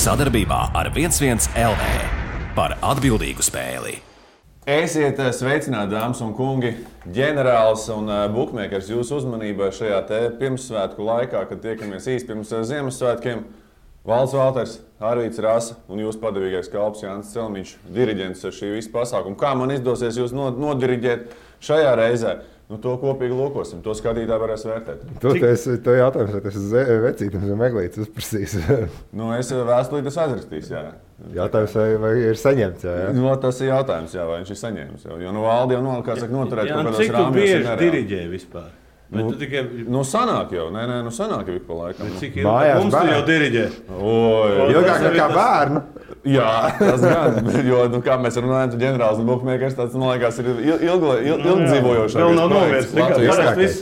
Sadarbībā ar 11 LV par atbildīgu spēli. Esiet sveicināti, dāmas un kungi, ģenerālis un bukmēkers jūsu uzmanībai šajā pirmssvētku laikā, kad tiekamies īsti pirms Ziemassvētkiem. Valds Valters, Arvīts Rasa un jūsu padevīgais kalps Jānis Celmiņš, diriģents šī visa pasākuma. Kā man izdosies jūs nodiriģēt šajā reizē? Nu, to kopīgi lūkosim, to skatītāji varēs vērtēt. To jautājums, vai tas ir vecītams vai meglītis uzprasīs? Nu, es vēstulīt esmu aizrakstījis, jā. Jautājums, vai ir saņemts, jā? No, tas ir jautājums, jā, vai viņš ir saņēmis. Jo nu valdi jau noturēt kaut kādos rāmjos. Cik tu bieži diriģē vispār? Sanāk jau, sanāk jau ik pa laikam. Cik ilgi mums tu jau diriģē? Ilgāk nekā bērnu. Jā, tas gan, jo, kā mēs runājam, tu ģenerālis un bukmēkers, tāds, man liekas, ir ilgdzīvojošākais vēl nav novērts.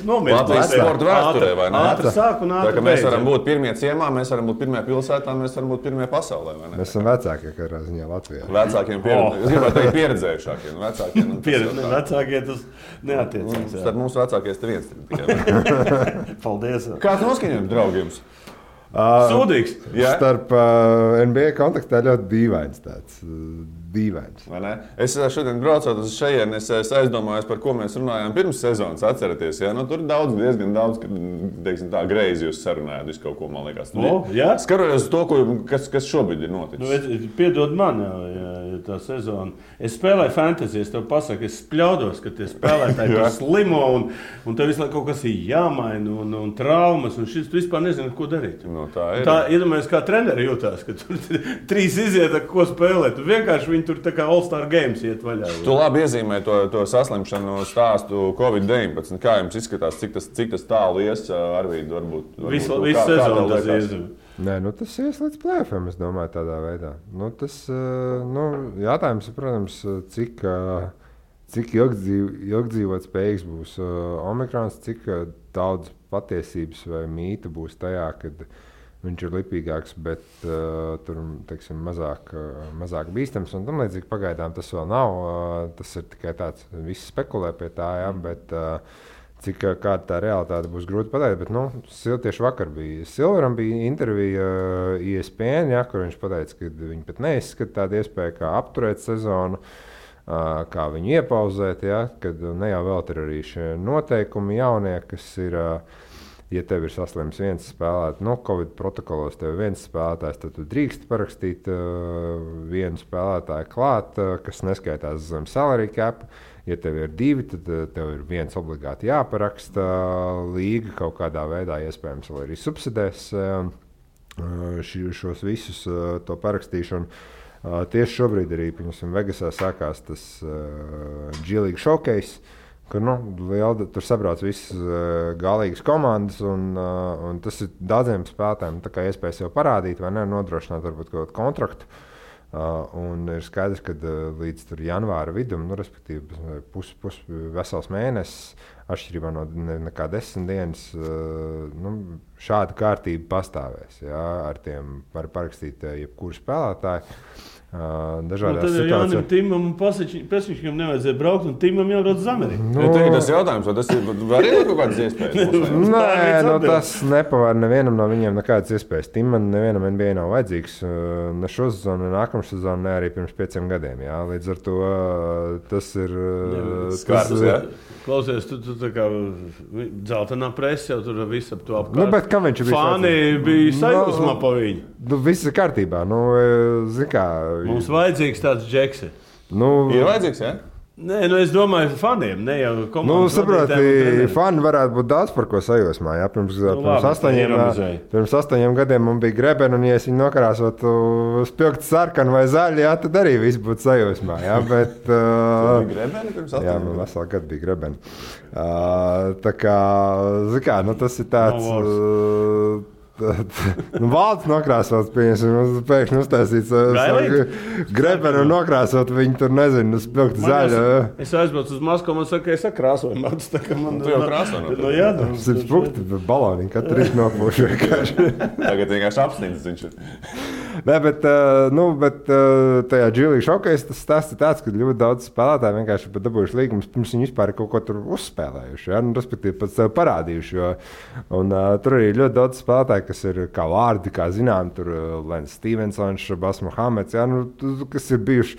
Latvijas sporta vēsturē, vai ne? Ātri sāk un ātri beidz. Mēs varam būt pirmie ciemā, mēs varam būt pirmie pilsētā, mēs varam būt pirmie pasaulē, vai ne? Mēs esam vecākie, kādā ziņā Latvijā. Vecākiem pieredzējušākie. Vecākie tas neatiecās. Starp mums vecākies te viens tikai. Paldies. Kāds noskaņojums, draugi, jums? Sūdīgs. Starp NBA kontekstā ļoti dīvains tāds. Dīvains. Es šodien braucot uz šejienes, es aizdomājos, par ko mēs runājām pirms sezonas, atceraties. Ja? Nu, tur diezgan daudz, teiksim tā, greizi jūs sarunājāt, visu kaut ko, man liekas. Skaroties uz to, kas šobrīd ir noticis. Piedod man, tā sezona. Es spēlēju fantasy, es tev pasaku, es spļaudos, ka tie spēlētāji tur slimo un tev visu laiku kaut kas ir jāmaina un traumas, un šis tu vispār nezini, ko darīt. No, tā ir. Tā, iedomājies, kā treneri jūtās, ka tur 3 iziet, ko spēlēt. Tu vienkārši viņi tur tā kā All-Star Games iet vaļā. Tu labi iezīmē to saslimšanu stāstu COVID-19. Kā jums izskatās, cik tas tālu ies, Arvīd, varbūt? Visu sezonu tas iezīmē. Nē, tas ies līdz play-offiem, es domāju, tādā veidā. Jātājums ir, protams, cik ilgdzīvot spējīgs būs Omikrons, cik daudz patiesības vai mīta būs tajā, kad viņš ir lipīgāks, bet tur teiksim, mazāk bīstams. Un tam līdzīgi pagaidām tas vēl nav. Tas ir tikai tāds, visi spekulē pie tā, jā, bet kāda tā realitāte būs grūti pateikt. Bet, tieši vakar bija Silveram bija intervija ESPN, jā, kur viņš pateica, ka viņi pat neizskata tādu iespēju, kā apturēt sezonu, kā viņu iepauzēt, jā, kad ne jau vēl ir arī šie noteikumi jaunie, kas ir. Ja tev ir saslims viens spēlētājs, Covid protokolos tev ir viens spēlētājs, tad tu drīkst parakstīt vienu spēlētāju klāt, kas neskaitās zem salary cap. Ja tev ir 2, tad tev ir viens obligāti jāparaksta. Līga kaut kādā veidā iespējams vēl arī subsidēs šos visus to parakstīšanu. Tieši šobrīd arī Vegasā sākās tas G-League Showcase. Kur tur sabrauc visas galīgas komandas, un tas ir daudziem spēlētājiem iespēja sev parādīt vai ne, nodrošināt varbūt kaut kādu kontraktu. Un ir skaidrs, ka līdz janvāra vidum, respektīvi vesels mēnesis, atšķirībā no nekā 10 dienas, šāda kārtība pastāvēs. Jā, ar tiem var parakstīt jebkuru spēlētāju. Tad Jānim Timam un Pesničkam nevajadzēja braukt, un Timam jābrauc uz Ameriku. Tas jautājums, vai tas var iet kaut kādas iespējas? Nē, tas nepavar nevienam no viņiem nekādas iespējas. Timam nevienam NBA nav vajadzīgs ne šo sezonu, ne nākamā sezonu, ne arī pirms 5 gadiem. Jā. Līdz ar to tas ir... Skārs, jā? Klausies, tu tā kā dzeltenā presa jau tur viss ap to apkārt. Bet kā viņš bija? Fāni bija sajūsmā pa viņu. Viss ir kārtībā. Zin kā... Mums vajadzīgs tāds džeks. Ir vajadzīgs, jā? Nē, es domāju, faniem, ne jau komandas. Saproti, fani varētu būt daudz par ko sajūsmā. Jā, pirms 8 gadiem man bija Grebena, un ja es viņu nokrāsotu spilgti sarkanu vai zaļu, jā, tad arī viss būtu sajūsmā. Jā, bet... Grebena pirms 8 gadiem? Jā, man veselu gadu bija Grebena. Tā kā, tas ir tāds... Valds nokrāsot, pēkšņi uztaisīts Grebenu un nokrāsot viņu tur, nezinu, spilgti zaļu. Es aizbraucu uz Maskavu, man saka, es krāsoju matu, tā kā man... Tu jau krāsoju? Jā, spilgti baloniņi, katru rītu nopūšu vienkārši. Tagad vienkārši apsnīdz viņš ir. Nē, bet tajā G-League Showcase tas stāsts ir tāds, ka ļoti daudz spēlētāji vienkārši pat dabūjuši līgumus, pirms viņi vispār kaut ko tur uzspēlējuši, ja? Respektīvi pat sev parādījuši. Un tur arī ļoti daudz spēlētāji, kas ir kā vārdi, kā zinām, tur Lens Stevensons, Šabas Mohameds, jā, nu, kas ir bijuši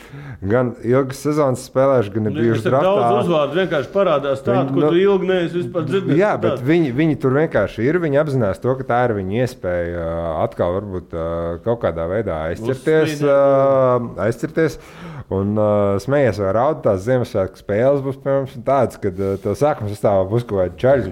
gan ilgas sezonas spēlējuši, gan ir bijuši draftā. Daudz uzvārdu vienkārši parādās tādu, ko tu ilgi neesi vispār dzirdējis. Jā, bet viņi tur vienkārši ir, viņi apzinās to, ka tā ir viņa iespēja atkal varbūt kaut kādā veidā aizcirties. Un smējies vai raud, tās Ziemassvētku spēles būs, piemēram, tādas, kad tev sākuma sastāvā būs kaut kādi čaļi,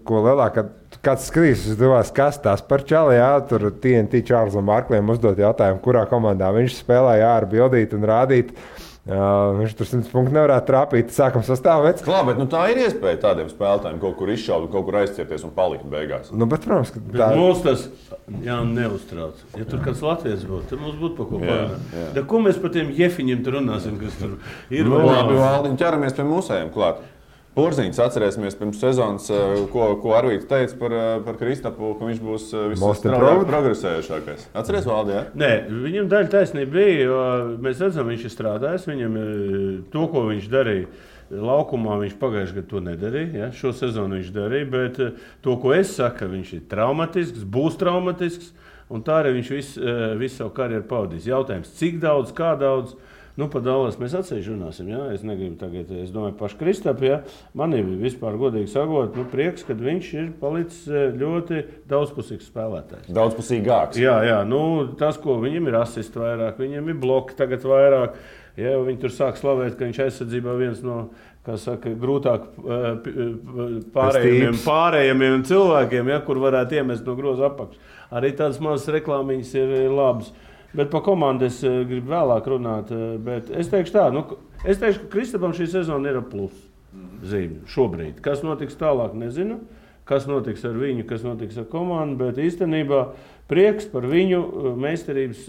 ko lielākā kāds skatīs, kas tās par čali, jā, tur TNT Čārlzam Barkliem uzdot jautājumu, kurā komandā viņš spēlē, jā, ar bildīt un rādīt. Viņš tur 100 punktu nevarētu trāpīt, sākam sastāvēt. Klā, bet tā ir iespēja tādiem spēlētājiem kaut kur izšaut, kaut kur aizcieties un palikt beigās. Bet, protams, ka tā... Mums tas neuztrauc. Ja tur kāds Latvijas būtu, tad mums būtu pa ko pārnāt. Ko mēs par tiem jefiņiem tur runāsim, kas tur ir? Labi, Valdiņ, ķeramies pie mūsējiem klāt. Porziņš atcerēsimies pirms sezonas, ko Arvīts teica par Kristapu, ka viņš būs progresējušākais. Atceries, Valdi, jā? Nē, viņam daļa taisnība bija, jo mēs redzam, viņš ir strādājis, viņam to, ko viņš darīja laukumā, viņš pagājušajā gadā to nedarīja, ja? Šo sezonu viņš darīja, bet to, ko es saku, viņš ir traumatisks, būs traumatisks, un tā arī viņš visu savu karjeru pavadīs. Jautājums, cik daudz, kā daudz? Nu, par Dallas mēs atsevišķi runāsim. Ja? Es negribu tagad, es domāju, pašu Kristapu. Ja? Man ir vispār godīgi sakot, prieks, ka viņš ir palicis ļoti daudzpusīgs spēlētājs. Daudzpusīgāks. Jā, nu, tas, ko viņam ir asisti vairāk, viņam ir bloki tagad vairāk. Ja? Viņi tur sāk slavēt, ka viņš aizsardzībā viens no, kā saka, grūtāk pārējiem cilvēkiem, ja? Kur varētu iemest no groza apakš. Arī tādas mazas reklāmiņas ir labas. Bet par komandu es gribu vēlāk runāt. Bet es teikšu tā, ka Kristapam šī sezona ir plus zīme šobrīd. Kas notiks tālāk, nezinu. Kas notiks ar viņu, kas notiks ar komandu. Bet īstenībā prieks par viņu meistarības,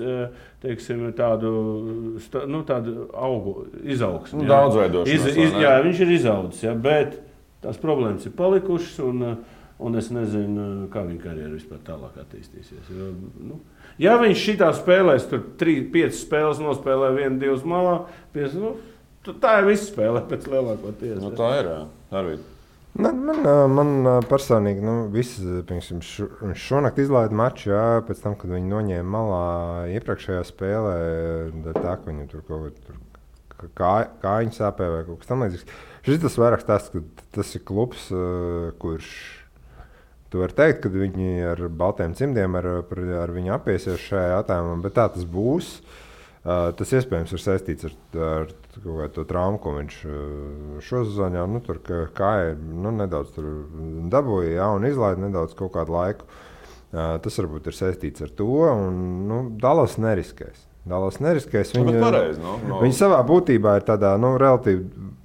teiksim, tādu augu izaugsmu. Daudzveidošanos. Jā, viņš ir izaudzis, ja, bet tās problēmas ir palikušas un es nezinu, kā viņa karjera vispār tālāk attīstīsies. Ja viņš šitā spēlēs, tur 3-5 spēles nospēlē 1-2 malā, tā ir visa spēlē pēc lielākoties. Tā ir, Arvīd. Man personīgi, viņš šonakt izlaida maču, jā, pēc tam, kad viņi noņēma malā iepriekšējā spēlē, tā, ka viņam tur kaut kājiņu sāpē vai kaut kas tam līdzīgs. Šis tas vairāk stāsts, ka tas ir klubs, kurš tu vari teikt, ka viņi ar baltiem cimdiem ar viņu apiesies šajā jautājumā, bet tā tas būs. Tas iespējams ir saistīts ar to traumu, ko viņš šo sezonu jau tur kāja nedaudz tur dabūja, jā, un izlaida nedaudz kaut kādu laiku. Tas varbūt ir saistīts ar to, un Dallas neriskēs. Viņi savā būtībā ir tādā relatīvi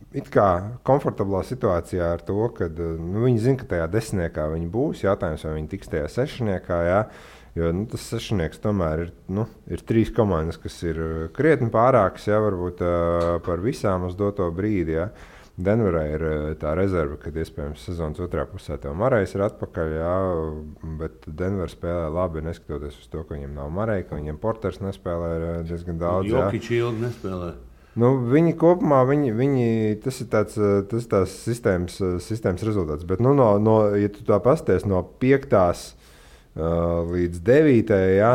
it kā komfortablā situācijā ar to, ka viņi zina, ka tajā desmitniekā viņi būs. Jautājums, vai viņi tiks tajā sešniekā, jā. Jo tas sešnieks tomēr ir 3 komandas, kas ir krietni pārākas, jā, varbūt par visām uz doto brīdi. Jā. Denverā ir tā rezerve, kad iespējams sezonas otrā pusē tev Marejs ir atpakaļ, jā, bet Denver spēlē labi, neskatoties uz to, ka viņiem nav Marej, ka viņiem Porters nespēlē diezgan daudz. Jokić ilgi nespēlē. Viņi kopumā, tas ir tās sistēmas rezultāts. Bet, ja tu tā pasties no 5. Līdz 9. Jā,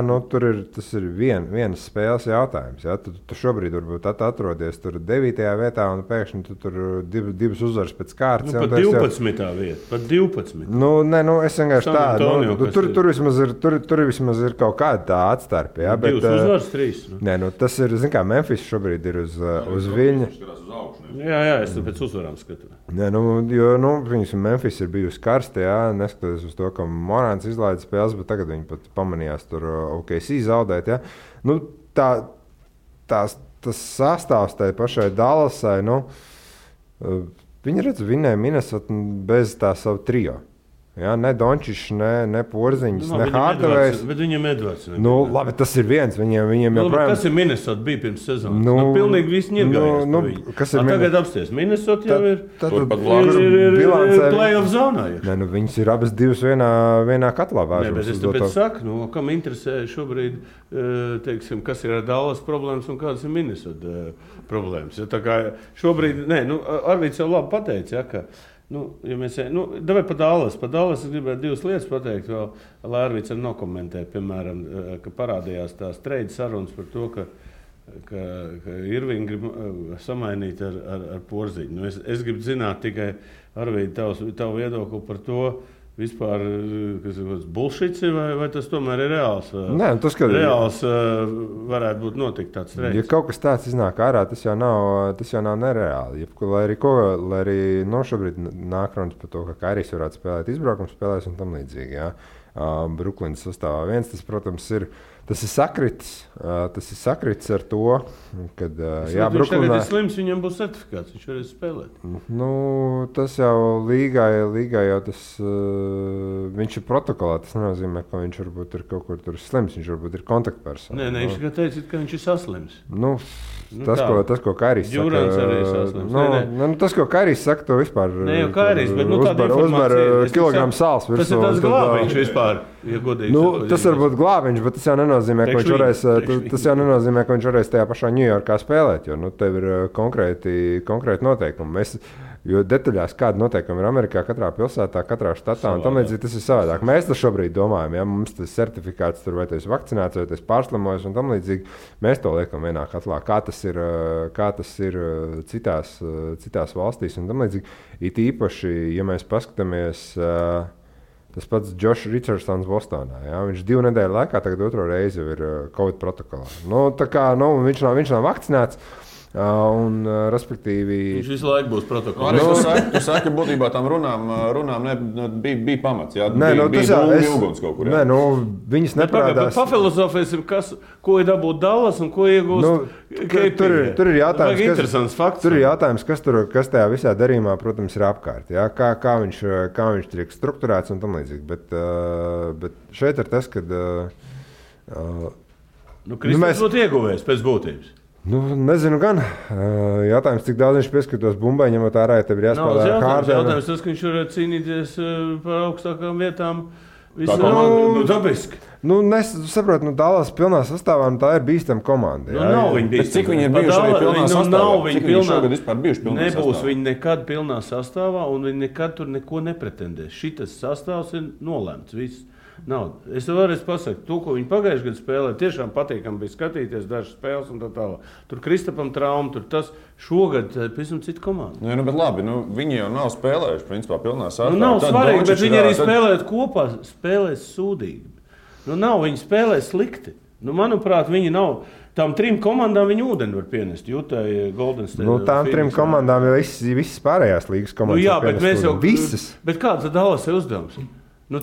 tas ir vienas spēles jautājums. Jā. Tu šobrīd varbūt atrodies tur 9. vietā un pēkšņi tu tur divas uzvaras pēc kārtas. Pat 12. vieta. Pat 12. Es vienkārši tādu. Tur vismaz ir kaut kāda tā atstarpe. Jā, bet, 2 uzvaras, 3. Tas ir, kā Memphis šobrīd ir uz viļņa. Jā, es pēc uzvarām skatu. Memphis ir bijusi karsta, jā, neskatoties uz to, ka Morāns izlaida spēles, bet tagad viņi pat pamanījās tur OKC zaudēt. Ja? Tas sastāvs tai pašai Dallasai, viņi vinēja Minnesota bez tā savu trio. Ja, ne Dončišs, ne Porziņš, ne Hardavejs. Bet viņam Edvards. Labi, tas ir viens. Viņiem joprojām... Kas ir Minnesota bija pirms sezonas? Pilnīgi visi ņirgājās. Tagad apsties. Minnesota jau ir play-off zonā. Viņas ir abas divas vienā katlā vēršas. Bet es tāpēc saku, kam interesē šobrīd, teiksim, kas ir ar Dallas problēmas un kādas ir Minnesota problēmas. Ja, tā kā šobrīd, Arvīds jau labi pateica, ja, ka Ja mēs, davai par Dallas es gribētu 2 lietas pateikt, vēl Lērvīts arī nokomentē, piemēram, ka parādījās tās trade sarunas par to, ka Irvingu grib samainīt ar Porziņu. Es gribu zināt tikai, Arvīd, tavu viedokli par to, vispār, kas ir bullshits, vai tas tomēr ir reāls? Nē, tas, ka reāls varētu būt notikt tāds trades. Ja kaut kas tāds iznāk ārā, tas jau nav nereāli. Lai arī šobrīd nāk runas par to, ka Kairijs varētu spēlēt izbraukums spēlēs un tam līdzīgi. Ja? Bruklinas sastāvā viens, tas, protams, ir sakritis ar to, kad viņš tagad ir slims, viņam būs certifikāts, viņš varēs spēlēt. Tas jau līgā jau tas, viņš ir protokolā, tas nenozīmē, ka viņš varbūt ir kaut kur tur slims, viņš varbūt ir kontaktpersona. Nē, viņš tikai teica, ka viņš ir saslims. Tas, ko Kairijs saka. Džurans arī ir saslims. Tas, ko Kairijs saka, to vispār ne jau Kairijs, bet tāda informācija. Uzvar kilogramu sāls virsū. Tas ir tāds glābiņš vispār, ja godīgi. Tas var būt glābiņš, bet tas jau nenozīmē, ka viņš varēs tajā pašā Ņujorkā spēlēt, jo tev ir konkrēti noteikumi. Jo detaļās, kāda noteikumi ir Amerikā, katrā pilsētā, katrā štatā, un tam līdzīgi tas ir savādāk. Mēs to šobrīd domājam, ja mums tas certifikāts tur, vai tas ir vakcinēts, vai tas ir pārslimojis, un tam līdzīgi mēs to liekam vienā katlā, kā tas ir citās valstīs, un tam līdzīgi. It īpaši, ja mēs paskatāmies, tas pats Josh Richardsons Bostonā, ja? Viņš 2 nedēļu laikā tagad 2. reizi jau ir Covid protokolā. Viņš nav vakcinēts. Respektīvi, viņš visu laiku būs protokolā. Tu saki, ka būtībā tam runām bija pamats. Jā, bija ilgums kaut kur. Jā. Viņas neparādās. Pafilozofēsim, ko ir dabūt Dallas un ko iegūst. Tur ir jautājums, kas tajā visā darījumā, protams, ir apkārt. Jā? Kā viņš tiek strukturēts un tam līdzīgi. Bet šeit ir tas, kad... Kristaps būtu ieguvējis pēc būtības. Nezinu gan. Jautājums, cik daudz viņš pieskatās bumbai, ņemot ārā, ja tev ir jāspēlē Hārdena. Jautājums tas, ka viņš var cīnīties par augstākām vietām. Dabiski. Saprotu, Dallas pilnā sastāvā, tā ir bīstama komanda. Nav viņa bīstama. Cik viņi ir bijuši arī pilnā sastāvā? Cik viņi šogad vispār bijuši pilnā sastāvā? Nebūs viņi nekad pilnā sastāvā, un viņi nekad tur neko nepretendēs. Šitas sastāvs ir nolēmts, viss. Nav. Es tev vēlreiz pasaku, to, ko viņi pagājušajā gadā spēlēja, tiešām patīkami bija skatīties dažas spēles un tā tālāk. Tur Kristapam trauma, tur tas šogad pavisam cita komanda. Bet labi, viņi jau nav spēlējuši, principā, pilnā sastāvā. Nav svarīgi, bet viņi arī spēlēt kopā, spēlēs sūdīgi. Viņi spēlē slikti. Manuprāt, viņi nav. Tām 3 komandām viņi ūdeni var pienest. Jūtai, Golden State. Tām 3 komandām jau visas pārējās līgas komandas. Jā, bet mēs jau... Visas. Bet kāds tad Dallas ir uzdevums?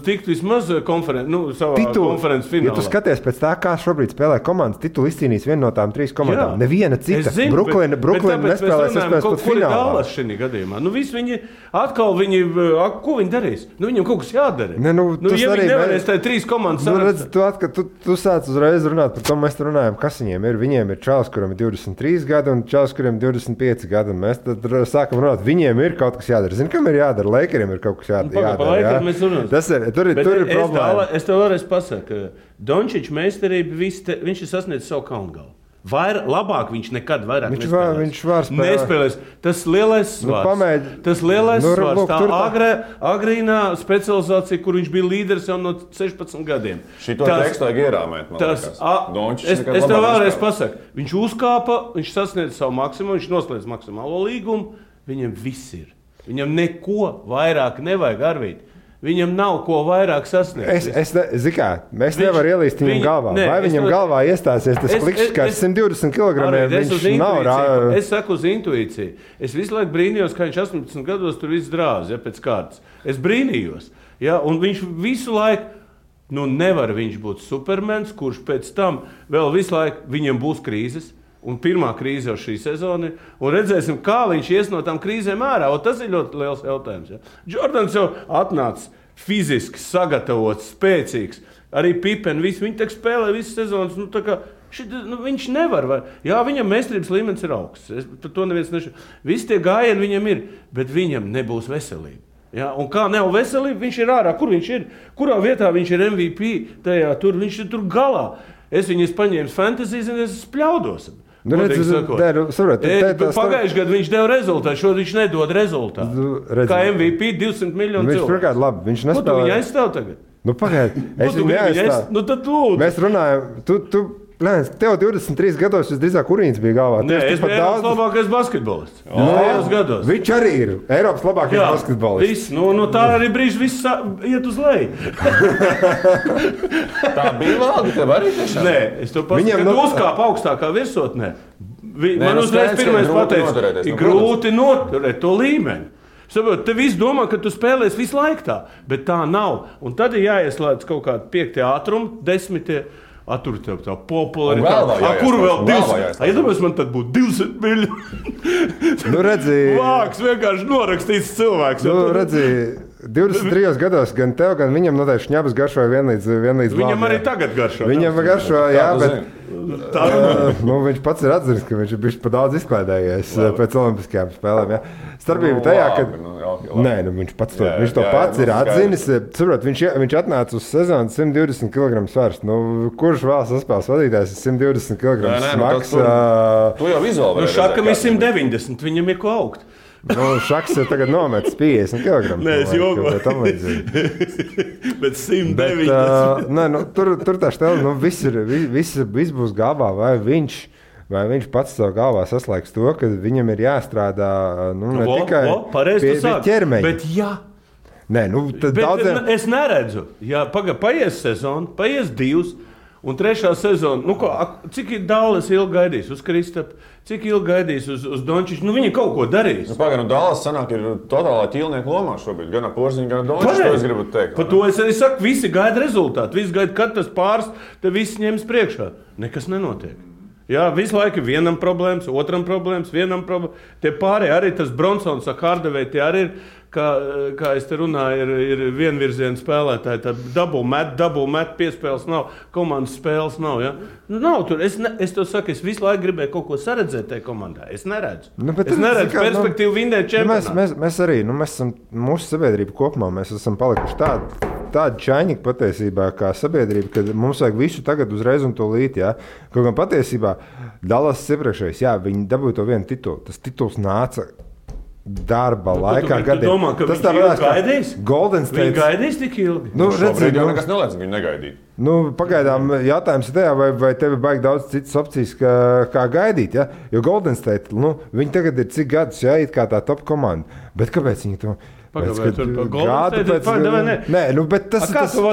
Tikt vismaz savā konferences finālā. Ja tu skaties pēc tā, kā šobrīd spēlē komandas, titulu izcīnīs viena no tām 3 komandām. Jā. Neviena cita. Brooklyn nespēlēs pēc finālā. Dallas šī gadījumā. Viņi atkal, ko viņi darīs? Viņam kaut kas jādara. Ja viņi nevarēs tā 3 komandas tu sāc uzreiz runāt par to, mēs runājam, kas viņiem ir. Viņiem ir čalis, kuram ir 23 gadi un čalis, kuriem ir 25 gadi. Un mēs tad sākam runāt, viņiem ir kaut kas jādara. Zini, kam ir jādara? Lakeriem ir kaut kas jādara. Tur ir problēma. Es tev vēlreiz pasaku, ka Dončičs meistarība, viņš ir sasniedzis savu kaungalu. Labāk viņš nekad vairāk nespēlēs. Tas lielais svars. Tā agrīnā specializācija, kur viņš bija līderis jau no 16 gadiem. Šito tekstu vajag ierāmēt, man liekas. Es tev vēlreiz pasaku, viņš uzkāpa, viņš sasniedz savu maksimumu, viņš noslēdz maksimālo līgumu, viņam viss ir. Viņam neko vairāk nevajag, Arvīd. Viņam nav ko vairāk sasniegt. Mēs nevaram ielīst viņam galvā. Vai viņam galvā iestāsies tas klikšķis, kā 120 kg? Viņš nav rāvis. Es saku uz intuīciju. Es visu laiku brīnījos, kā viņš 18 gados tur viss drāz, pēc kārtas. Es brīnījos. Un viņš visu laiku, nevar viņš būt supermens, kurš pēc tam vēl visu laiku viņam būs krīzes. Un pirmā krīze jau šī sezona ir. Un redzēsim, kā viņš ies no tām krīzēm ārā. Tas ir ļoti liels jautājums. Ja? Jordans jau atnāca fiziski sagatavots, spēcīgs. Arī Pippen, viņi tā spēlē visas sezonas. Viņš nevar. Jā, viņam meistarības līmenis ir augsts. Par to neviens nešķiet. Visi tie gājieni viņam ir, bet viņam nebūs veselība. Ja? Un kā nav veselība, viņš ir ārā. Kur viņš ir? Kurā vietā viņš ir MVP? Viņš ir tur galā. Es viņus paņēmu fantasy, es spļaudos. Pagājušajā gadā viņš deva rezultātu, šodien viņš nedod rezultātu. Kā MVP 200 miljonu cilvēku. Viņš pirmkārt labi, viņš nespēlē. Viņa aizstāv tagad? Pagaid, es viņu neaizstāvu. Tad lūdzu. Mēs runājam, tev 23 gados visdrīzāk Urīns bija galvā. Nē, es biju Eiropas labākais basketbolists. Gados. Viņš arī ir Eiropas labākais basketbolists. Tā arī brīži viss iet uz leju. Tā bija valga, tev arī tiešām? Nē, es to pasaku, kad uzkāp augstākā virsotnē. Man uzreiz pirmais pateica, ir grūti noturēt to līmeni. Saprot, te viss domā, ka tu spēlēsi visu laiku tā, bet tā nav. Un tad ir jāieslēdz kaut kādi 5. ātrumi, 10. Tur tev tā popularitāte. Kur vēl 200? Iedomājies, man tad būtu 200 miljoni. Vāks vienkārši norakstīts cilvēks. 23 gados gan tev, gan viņam noteikti šņabas garšoja vienlīdz Viņam arī tagad garšo. Viņam garšo, jā, bet viņš pats ir atzinis, ka viņš ir bijis pa daudz izklaidējies pēc olimpiskajām spēlēm. Jā. Starpība tajā, ka viņš to pats ir atzinis. Saprot, viņš atnāca uz sezonu 120 kg svars. Kurš vēl saspēles vadītājs ir 120 kg smags? Tu jau vizuāli. Šakam ir 190, viņam ir ko augt. Šaks ir tagad nometis 50 kg. Nē, es jokoju. Bet 190. Tur tā štēle, viss būs galvā, vai viņš pats savā galvā saslēgs to, ka viņam ir jāstrādā ne tikai pie ķermeņa. Bet jā. Nē, tad daudziem... Es neredzu. Jā, paies sezonu, paies 2. Un 3. sezona, cik Dallas ilgi gaidīs uz Kristapu, cik ilgi gaidīs uz Dončiču, viņi kaut ko darīs. Dallas sanāk ir totālā ķīlnieku lomā šobrīd, gan Porziņš, gan Dončiču, to es gribu teikt. Par to es arī saku, visi gaida rezultātu, visi gaida, kad tas pāris, te visi ņems priekšā. Nekas nenotiek. Jā, visu laiku vienam problēmas, otram problēmas, vienam problēmas. Tie pārējie arī tas Bronsons, Hardaway, tie arī ir, kā es te runāju, ir vienvirziena spēlētāji. Tā double met, piespēles nav, komandas spēles nav. Ja? Nav tur. Es to saku, es visu laiku gribēju kaut ko saredzēt tajā komandā. Es neredzu. Es neredzu perspektīvu vinnēt čempionātu. Mēs arī, mēs esam mūsu sabiedrība kopumā, mēs esam palikuši tādi čaņķi patiesībā kā sabiedrība, kad mums vajag visu tagad uzreiz un tūlīt. Ja? Kaut gan patiesībā Dallas iepriekšējais, jā, viņi dabūja to vienu titulu. Tas tituls nāca darba laikā. Tu domā, ka viņš ilgi gaidīs? Golden State. Viņi gaidīs tik ilgi? Šobrīd jau nekas neliec, viņi negaidīja. Pagaidām jautājums ir tajā, vai tev ir baigi daudz citas opcijas, kā gaidīt. Ja? Jo Golden State, viņi tagad ir cik gadus, ja, it kā tā top komanda. Bet kāpēc viņi to... Kā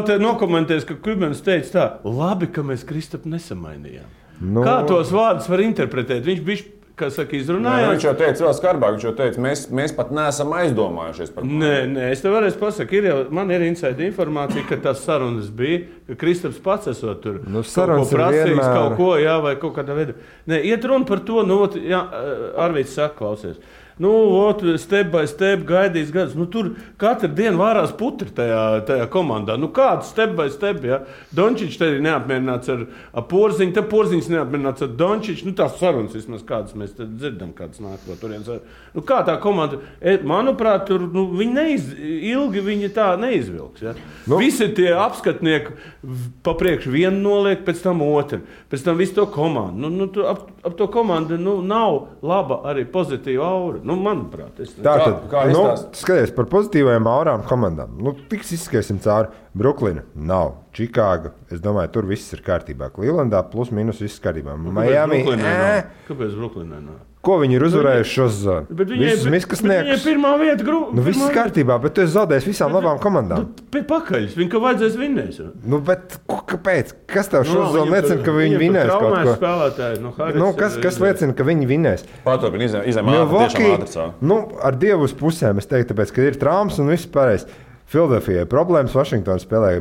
tu nokomentēsi, ka Kubens teica tā, labi, ka mēs Kristapu nesamainījām. Kā tos vārdus var interpretēt? Viņš bija, kā saka, izrunājās. Viņš jau teica vēl skarbāk, viņš jau teica, mēs pat neesam aizdomājušies par to. Nē, es tev varēšu pasaka, man ir inside informācija, ka tās sarunas bija, ka Kristaps pats esot tur sarunas prasījis kaut ko, jā, vai kaut kādā veidā. Nē, iet runa par to, jā, Arvīts saka, klausies. Step by step gaidīs gadus. Tur katru dienu vārās putri tajā komandā. Kāds step by step, ja? Dončičs te ir neapmierināts ar Porziņu, te Porziņš neapmierināts ar Dončiču. Tās sarunas vismaz kādas mēs dzirdam, kādas nāk no turienes. Kā tā komanda, manuprāt, tur ilgi viņi tā neizvilks. Ja? Visi tie apskatnieki papriekš vienu noliek, pēc tam otru. Pēc tam visu to komandu. Ap to komandu nav laba arī pozitīva aura. Manuprāt, skaties par pozitīvajām aurām komandām. Tiks izskatīsim cauri. Bruklina nav. Čikāga, es domāju, tur viss ir kārtībā. Clevelandā plus mīnus viss kārtībā. Miami. Kāpēc Bruklinē nav? Ko viņi ir uzvarējuši šo sezonu? Viņai pirmā vieta viss ir kārtībā, bet tu esi zaudējis visām labām komandām. Pakaļ, viņi ka vajadzēs vinnēs. Bet kāpēc? Kas tev šo sezonu liecina, ka viņi vinnēs kaut ko? Kas liecina, ka viņi vinnēs? Paturpin, izēmā tiešām ātrcā. Ar Dievu uz pusēm es teiktu, tāpēc, ka ir traumas un viss pareizi. Filadelfijai problēmas, Vašingtona spēlē.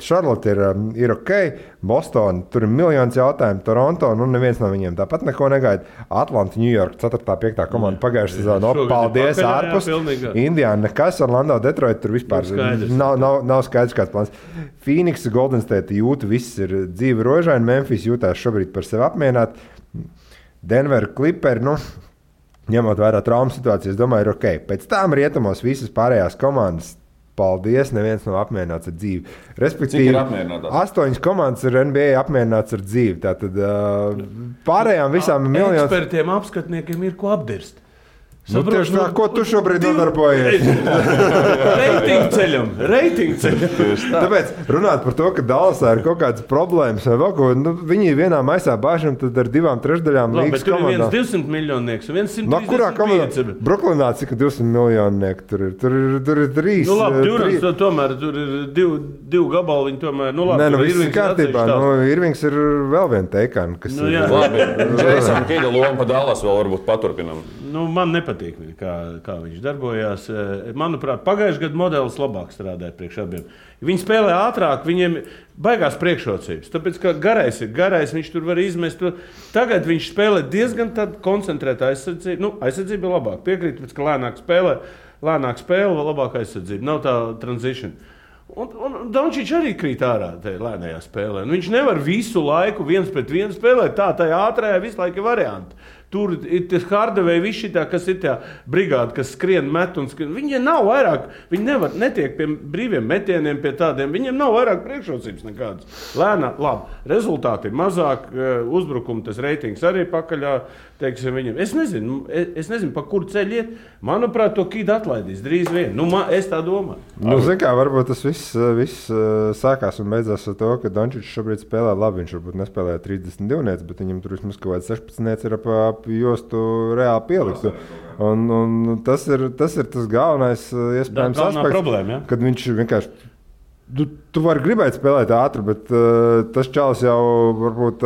Charlotte ir ok, Boston, tur ir miljons jautājumu, Toronto, neviens no viņiem tāpat neko negaida. Atlanta, New York, 4. 5. komanda pagājušajā sezonā. Paldies, ārpus. Indiana, nekas, Orlando, Detroit, tur vispār nav skaidrs kāds plāns. Phoenix, Golden State jūta, viss ir dzīve rožaini, Memphis jūtās šobrīd par sevi apmierināt. Denver, Clippers, ņemot vērā traumu situāciju, es domāju, ir ok. Pēc tām rietumos visas pārējās komandas paldies, neviens nav apmierināts ar dzīvi. Cik ir apmierinātās? 8 komandas ir NBA apmierināts ar dzīvi. Tātad pārējām visām miljoniem. Ekspertiem, apskatniekiem ir ko apdirst. Nu, tieši tā, ko tu šobrīd nodarbojies? Reitingu ceļam. Tāpēc runāt par to, ka Dallasā ir kaut kādas problēmas vai vēl ko, viņi vienā maisā bāžam tad ar 2/3 līgas komandām. Tur ir viens 200 miljonieks un viens 135. No kurā komandā? Brooklynā cik 200 miljonieki tur ir? Tur ir 3. Nu labi, Durants tomēr tur ir 2 gabali, viņi tomēr, nu labi. Nē, nu viss ir kārtībā. Irvings ir vēl viena teikana, kas ir. Labi, Jasona Kida loma pa Dallas vēl varbūt paturpinam. Nu, man nepatīk, kā viņš darbojās. Manuprāt, pagājušajā gadā modelis labāk strādāja priekš abiem. Viņi spēlē ātrāk, viņiem baigās priekšrocības. Tāpēc, ka garais ir garais, viņš tur var izmest. Tagad viņš spēlē diezgan koncentrēta aizsardzība. Nu, aizsardzība ir labāk. Piekrīt, ka lēnāk spēle, labāk aizsardzība. Nav tā transition. Un Dončić arī krīt ārā tajā lēnajā spēlē. Nu, viņš nevar visu laiku 1-1 spēlēt. Tajā ātrajā visu laiku ir varianti. Tur ir tas Hardaway, kas ir tā brigāde, kas skrien, met un skrien. Viņiem nav vairāk, viņi netiek pie brīviem metieniem, pie tādiem. Viņiem nav vairāk priekšrocības nekādas. Lēnā, labi, rezultāti ir mazāk, uzbrukumi, tas reitings arī pakaļā, teiksim, viņiem. Es nezinu, pa kuru ceļu iet. Manuprāt, to Kidu atlaidīs drīz vien. Nu, es tā domāju. Nu, zin kā, varbūt tas viss sākās un beidzās ar to, ka Dončić šobrīd spēlē labi. Viņš varbūt nespēlēja 32, bet viņam tur vismaz kaut kāds 16 ir ap jostu reāli pieliktu. Un tas ir tas galvenais iespējams aspekts, problēma, ja? Kad viņš vienkārši, tu vari gribēt spēlēt ātri, bet tas čalis jau varbūt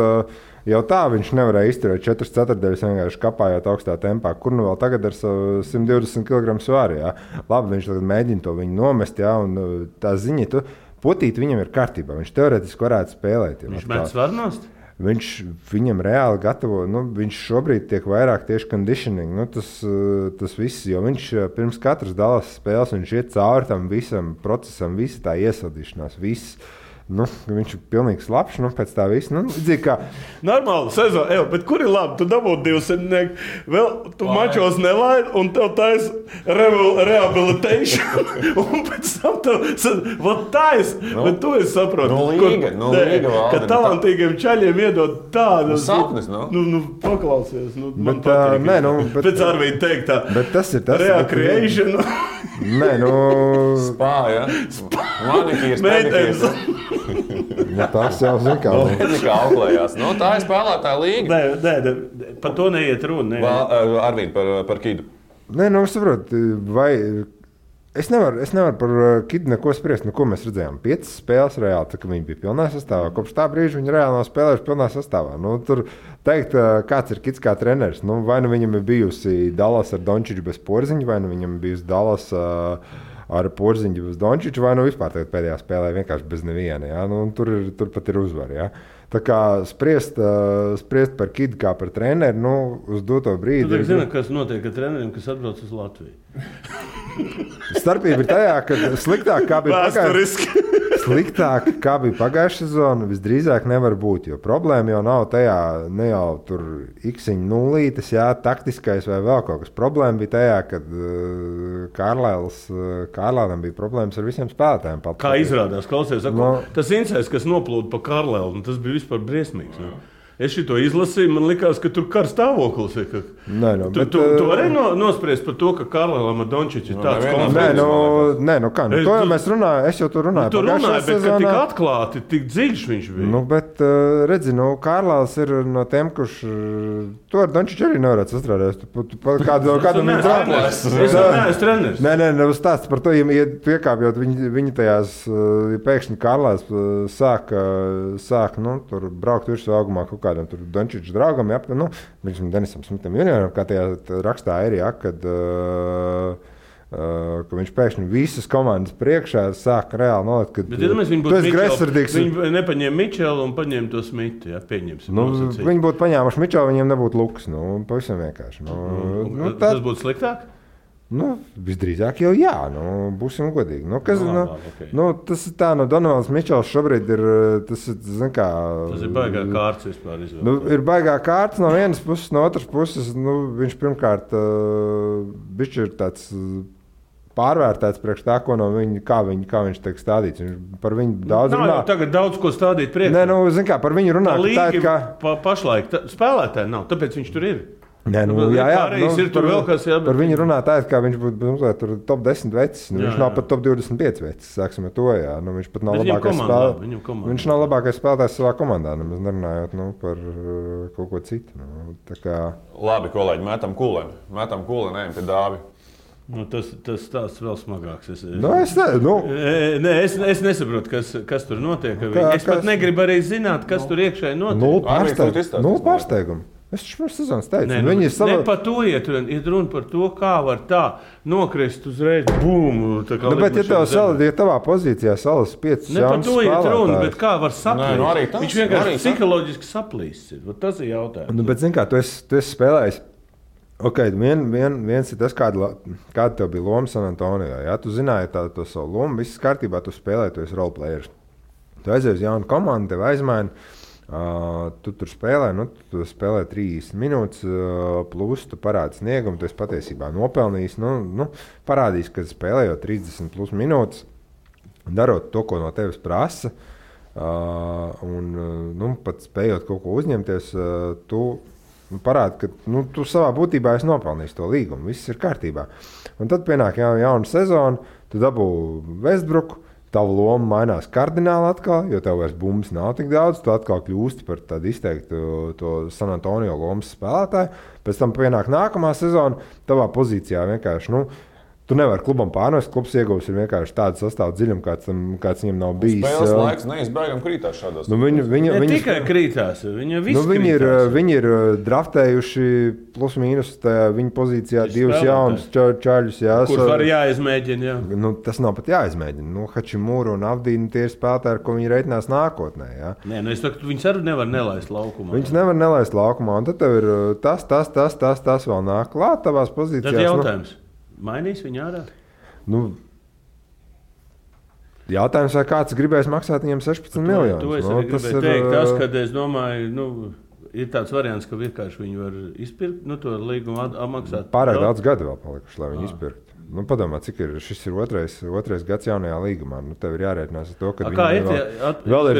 jau tā viņš nevarēja izturēt 4/4, vienkārši kapājot augstā tempā, kur nu vēl tagad ar 120 kg svāri, jā. Labi, viņš tagad mēģina to viņu nomest, jā, un tā ziņa, potīt viņam ir kārtībā, viņš teorētiski varētu spēlēt. Viņš met svarnost? Viņam reāli gatavo, viņš šobrīd tiek vairāk tieši conditioning, tas viss, jo viņš pirms katras Dallas spēles, viņš iet cauri tam visam procesam, visa tā iesaldīšanās, viss. Viņš ir pilnīgi slapš, pēc tā visa. Kā... Normāli sezona, bet kur ir labi? Tu dabūji 200, vēl tu mačos nelaid, un tev tais rehabilitation, un pēc tam tev tais, bet tu esi saproti. Ka talantīgiem čaļiem iedod tādu... Sapnis, paklausies. Man patīk. Pēc Arvīda teikt tā. Bet tas ir tas. Recreation. Spā, ja? Manikīrs, pedikīrs. Tas jau zina, kā auklējās. Tā ir spēlētāja līga. Nē, par to neiet runa. Arvīd, par Kidu. Nē, saprotu, vai... Es nevaru par Kidu neko spriest. Ko mēs redzējām? 5 spēles reāli, tā, ka viņi bija pilnā sastāvā. Kopš tā brīža viņi reāli nav spēlējuši pilnā sastāvā. Tur teikt, kāds ir Kids kā treneris. Vai nu viņam ir bijusi Dallas ar Dončiću bez Porziņa, vai nu viņam ir bijusi Dallas ar Porziņu bez Dončića, vai nu vispār pēdējā spēlē vienkārši bez neviena. Ja? Tur pat ir uzvara. Ja? Tā kā spriest par Kidu kā par treneri, uz doto brīdi... Tu zini, kas notiek ar treneriem, kas atbrauc uz Latviju? Starpība ir tajā, ka sliktāk kā bija pagājušā sezona, visdrīzāk nevar būt. Jo problēma jau nav tajā, ne jau tur x-iņa nulītes, jā, taktiskais vai vēl kaut kas. Problēma bija tajā, kad Kārlēlam bija problēmas ar visiem spēlētājiem. Kā izrādās, klausies, tas incēs, kas noplūda pa Kārlēlu, tas bija vispār briesmīgs. Ne? Es šito izlasīju, man likās, ka tur kar stāvoklis ir. Tu vari nospriest par to, ka Kārlēlam ar Dončiću ir tāds konflikts? Nē, kā? To jau mēs runājam, es jau tur runāju. Tu runāji, bet ka tik atklāti, tik dziļš viņš bija. Bet redzi, Kārlēls ir no tiem, kurš to ar Dončiću arī nevarētu sastrādāt. Kādu viņi trāpēs? Es neesmu treneris. Nē, stāsts par to, ja piekāpjot viņi tajās, pēkšņi Kārlēls sāk tur braukt virsū augumā kaut kādam tur Dončića draugam, Denisam Smitam junioram, kā tajā rakstā ir, kad viņš pēkšņi visas komandas priekšā sāk reāli nolikt, kad tu esi greizsirdīgs. Viņi nepaņēma Mičelu un paņēma to Smitu, pieņemsim. Viņi būtu paņēmuši Mičelu, viņiem nebūtu luks, pavisam vienkārši. Tas būtu sliktāk? Visdrīzāk jau jā, būsim godīgi. Tas ir tā, Donovans Mičels šobrīd ir, tas ir baigā kārts vispār izvēlēt. Ir baigā kārts no vienas puses, no otras puses, viņš pirmkārt bišķi ir tāds pārvērtēts priekš tā, ko no viņa, kā viņš tiek stādīts. Par viņu daudz runā. Tagad daudz ko stādīt priekšā. Nē, zin kā, par viņu runā, tā ir kā... Pašlaik spēlētāji nav, tāpēc viņš tur ir. Nē, ir tur vēl kas jābūt. Par viņu runā tā, kā viņš būtu top 10 vecs. Viņš nav pat top 25 vecs, sāksim ar to, jā. Viņš pat nav labākais spēlētājs. Viņš nav labākais spēlētājs savā komandā, nemaz nerunājot par kaut ko citu. Labi, kolēģi, metam kūlēm, ejam pie Dāvi. Tas tāds vēl smagāks. Es nesaprotu, kas tur notiek. Es pat negribu arī zināt, kas tur iekšēji notiek. Nulle pārsteigumu. Es taču pirms sezonas teicu. Ne par to iet runa par to, kā var tā nokrist uzreiz. Bum! Bet ja tavā pozīcijā salas 5 Ne par jaunas to iet runa, bet kā var saplīst? Viņš vienkārši psiholoģiski saplīst. Tas ir jautājums. Bet zin kā, tu esi spēlējis. Viens ir tas, kāda tev bija loma San Antonijā. Ja? Tu zināji to savu lomu, viss kārtībā, tu spēlēji, tu esi roleplayers. Tu aizies uz jaunu komandu, tev aizmaina, tu tur spēlē, tu spēlē 30 minūtes, plus tu parādi sniegumu, tu esi patiesībā nopelnījis, parādījis, ka spēlējot 30 plus minūtes, darot to, ko no tevis prasa, un pat spējot kaut ko uzņemties, tu parāda, ka tu savā būtībā esi nopelnījis to līgumu. Viss ir kārtībā. Un tad pienāk jauna sezona, tu dabū Westbrooku, tava loma mainās kardināli atkal, jo tev vairs bumbas nav tik daudz, tu atkal kļūsti par tādu izteiktu to San Antonio lomas spēlētāju. Pēc tam pienāk nākamā sezona, tavā pozīcijā vienkārši, tu nevari klubam pārnest, klubs iegūs ir vienkārši tādu sastāvu dziļumu, kāds viņam nav bijis. Spēles laiks neizbēgam krītās šādos. Tikai krītās, viņi ir draftējuši plus mīnus viņa pozīcijā divus jaunus čaļus. Kurus var jāizmēģina, jā. Tas nav pat jāizmēģina. Hačimūru un Avdīnu tie ir spēlētāji, ar ko viņi reiķinās nākotnē. Jā. Nē, es saku, viņus arī nevar nelaist laukumā. Viņus nevar nelaist laukumā, un tad tev ir tas vēl nāk klāt tavās pozīcijās. Tad jautājums. Mainīs viņu ārā? Jautājums, vai kāds gribēs maksāt viņam 16 miljonus? To es arī gribēju teikt. Tas, kad es domāju, ir tāds variants, ka vienkārši viņi var izpirkt, to līgumu maksāt. Pārāk daudz gadu vēl palikuši, lai viņi izpirktu. Padomā, cik šis ir otrais gads jaunajā līgumā. Tev ir jārēķinās ar to, ka kā vēl ir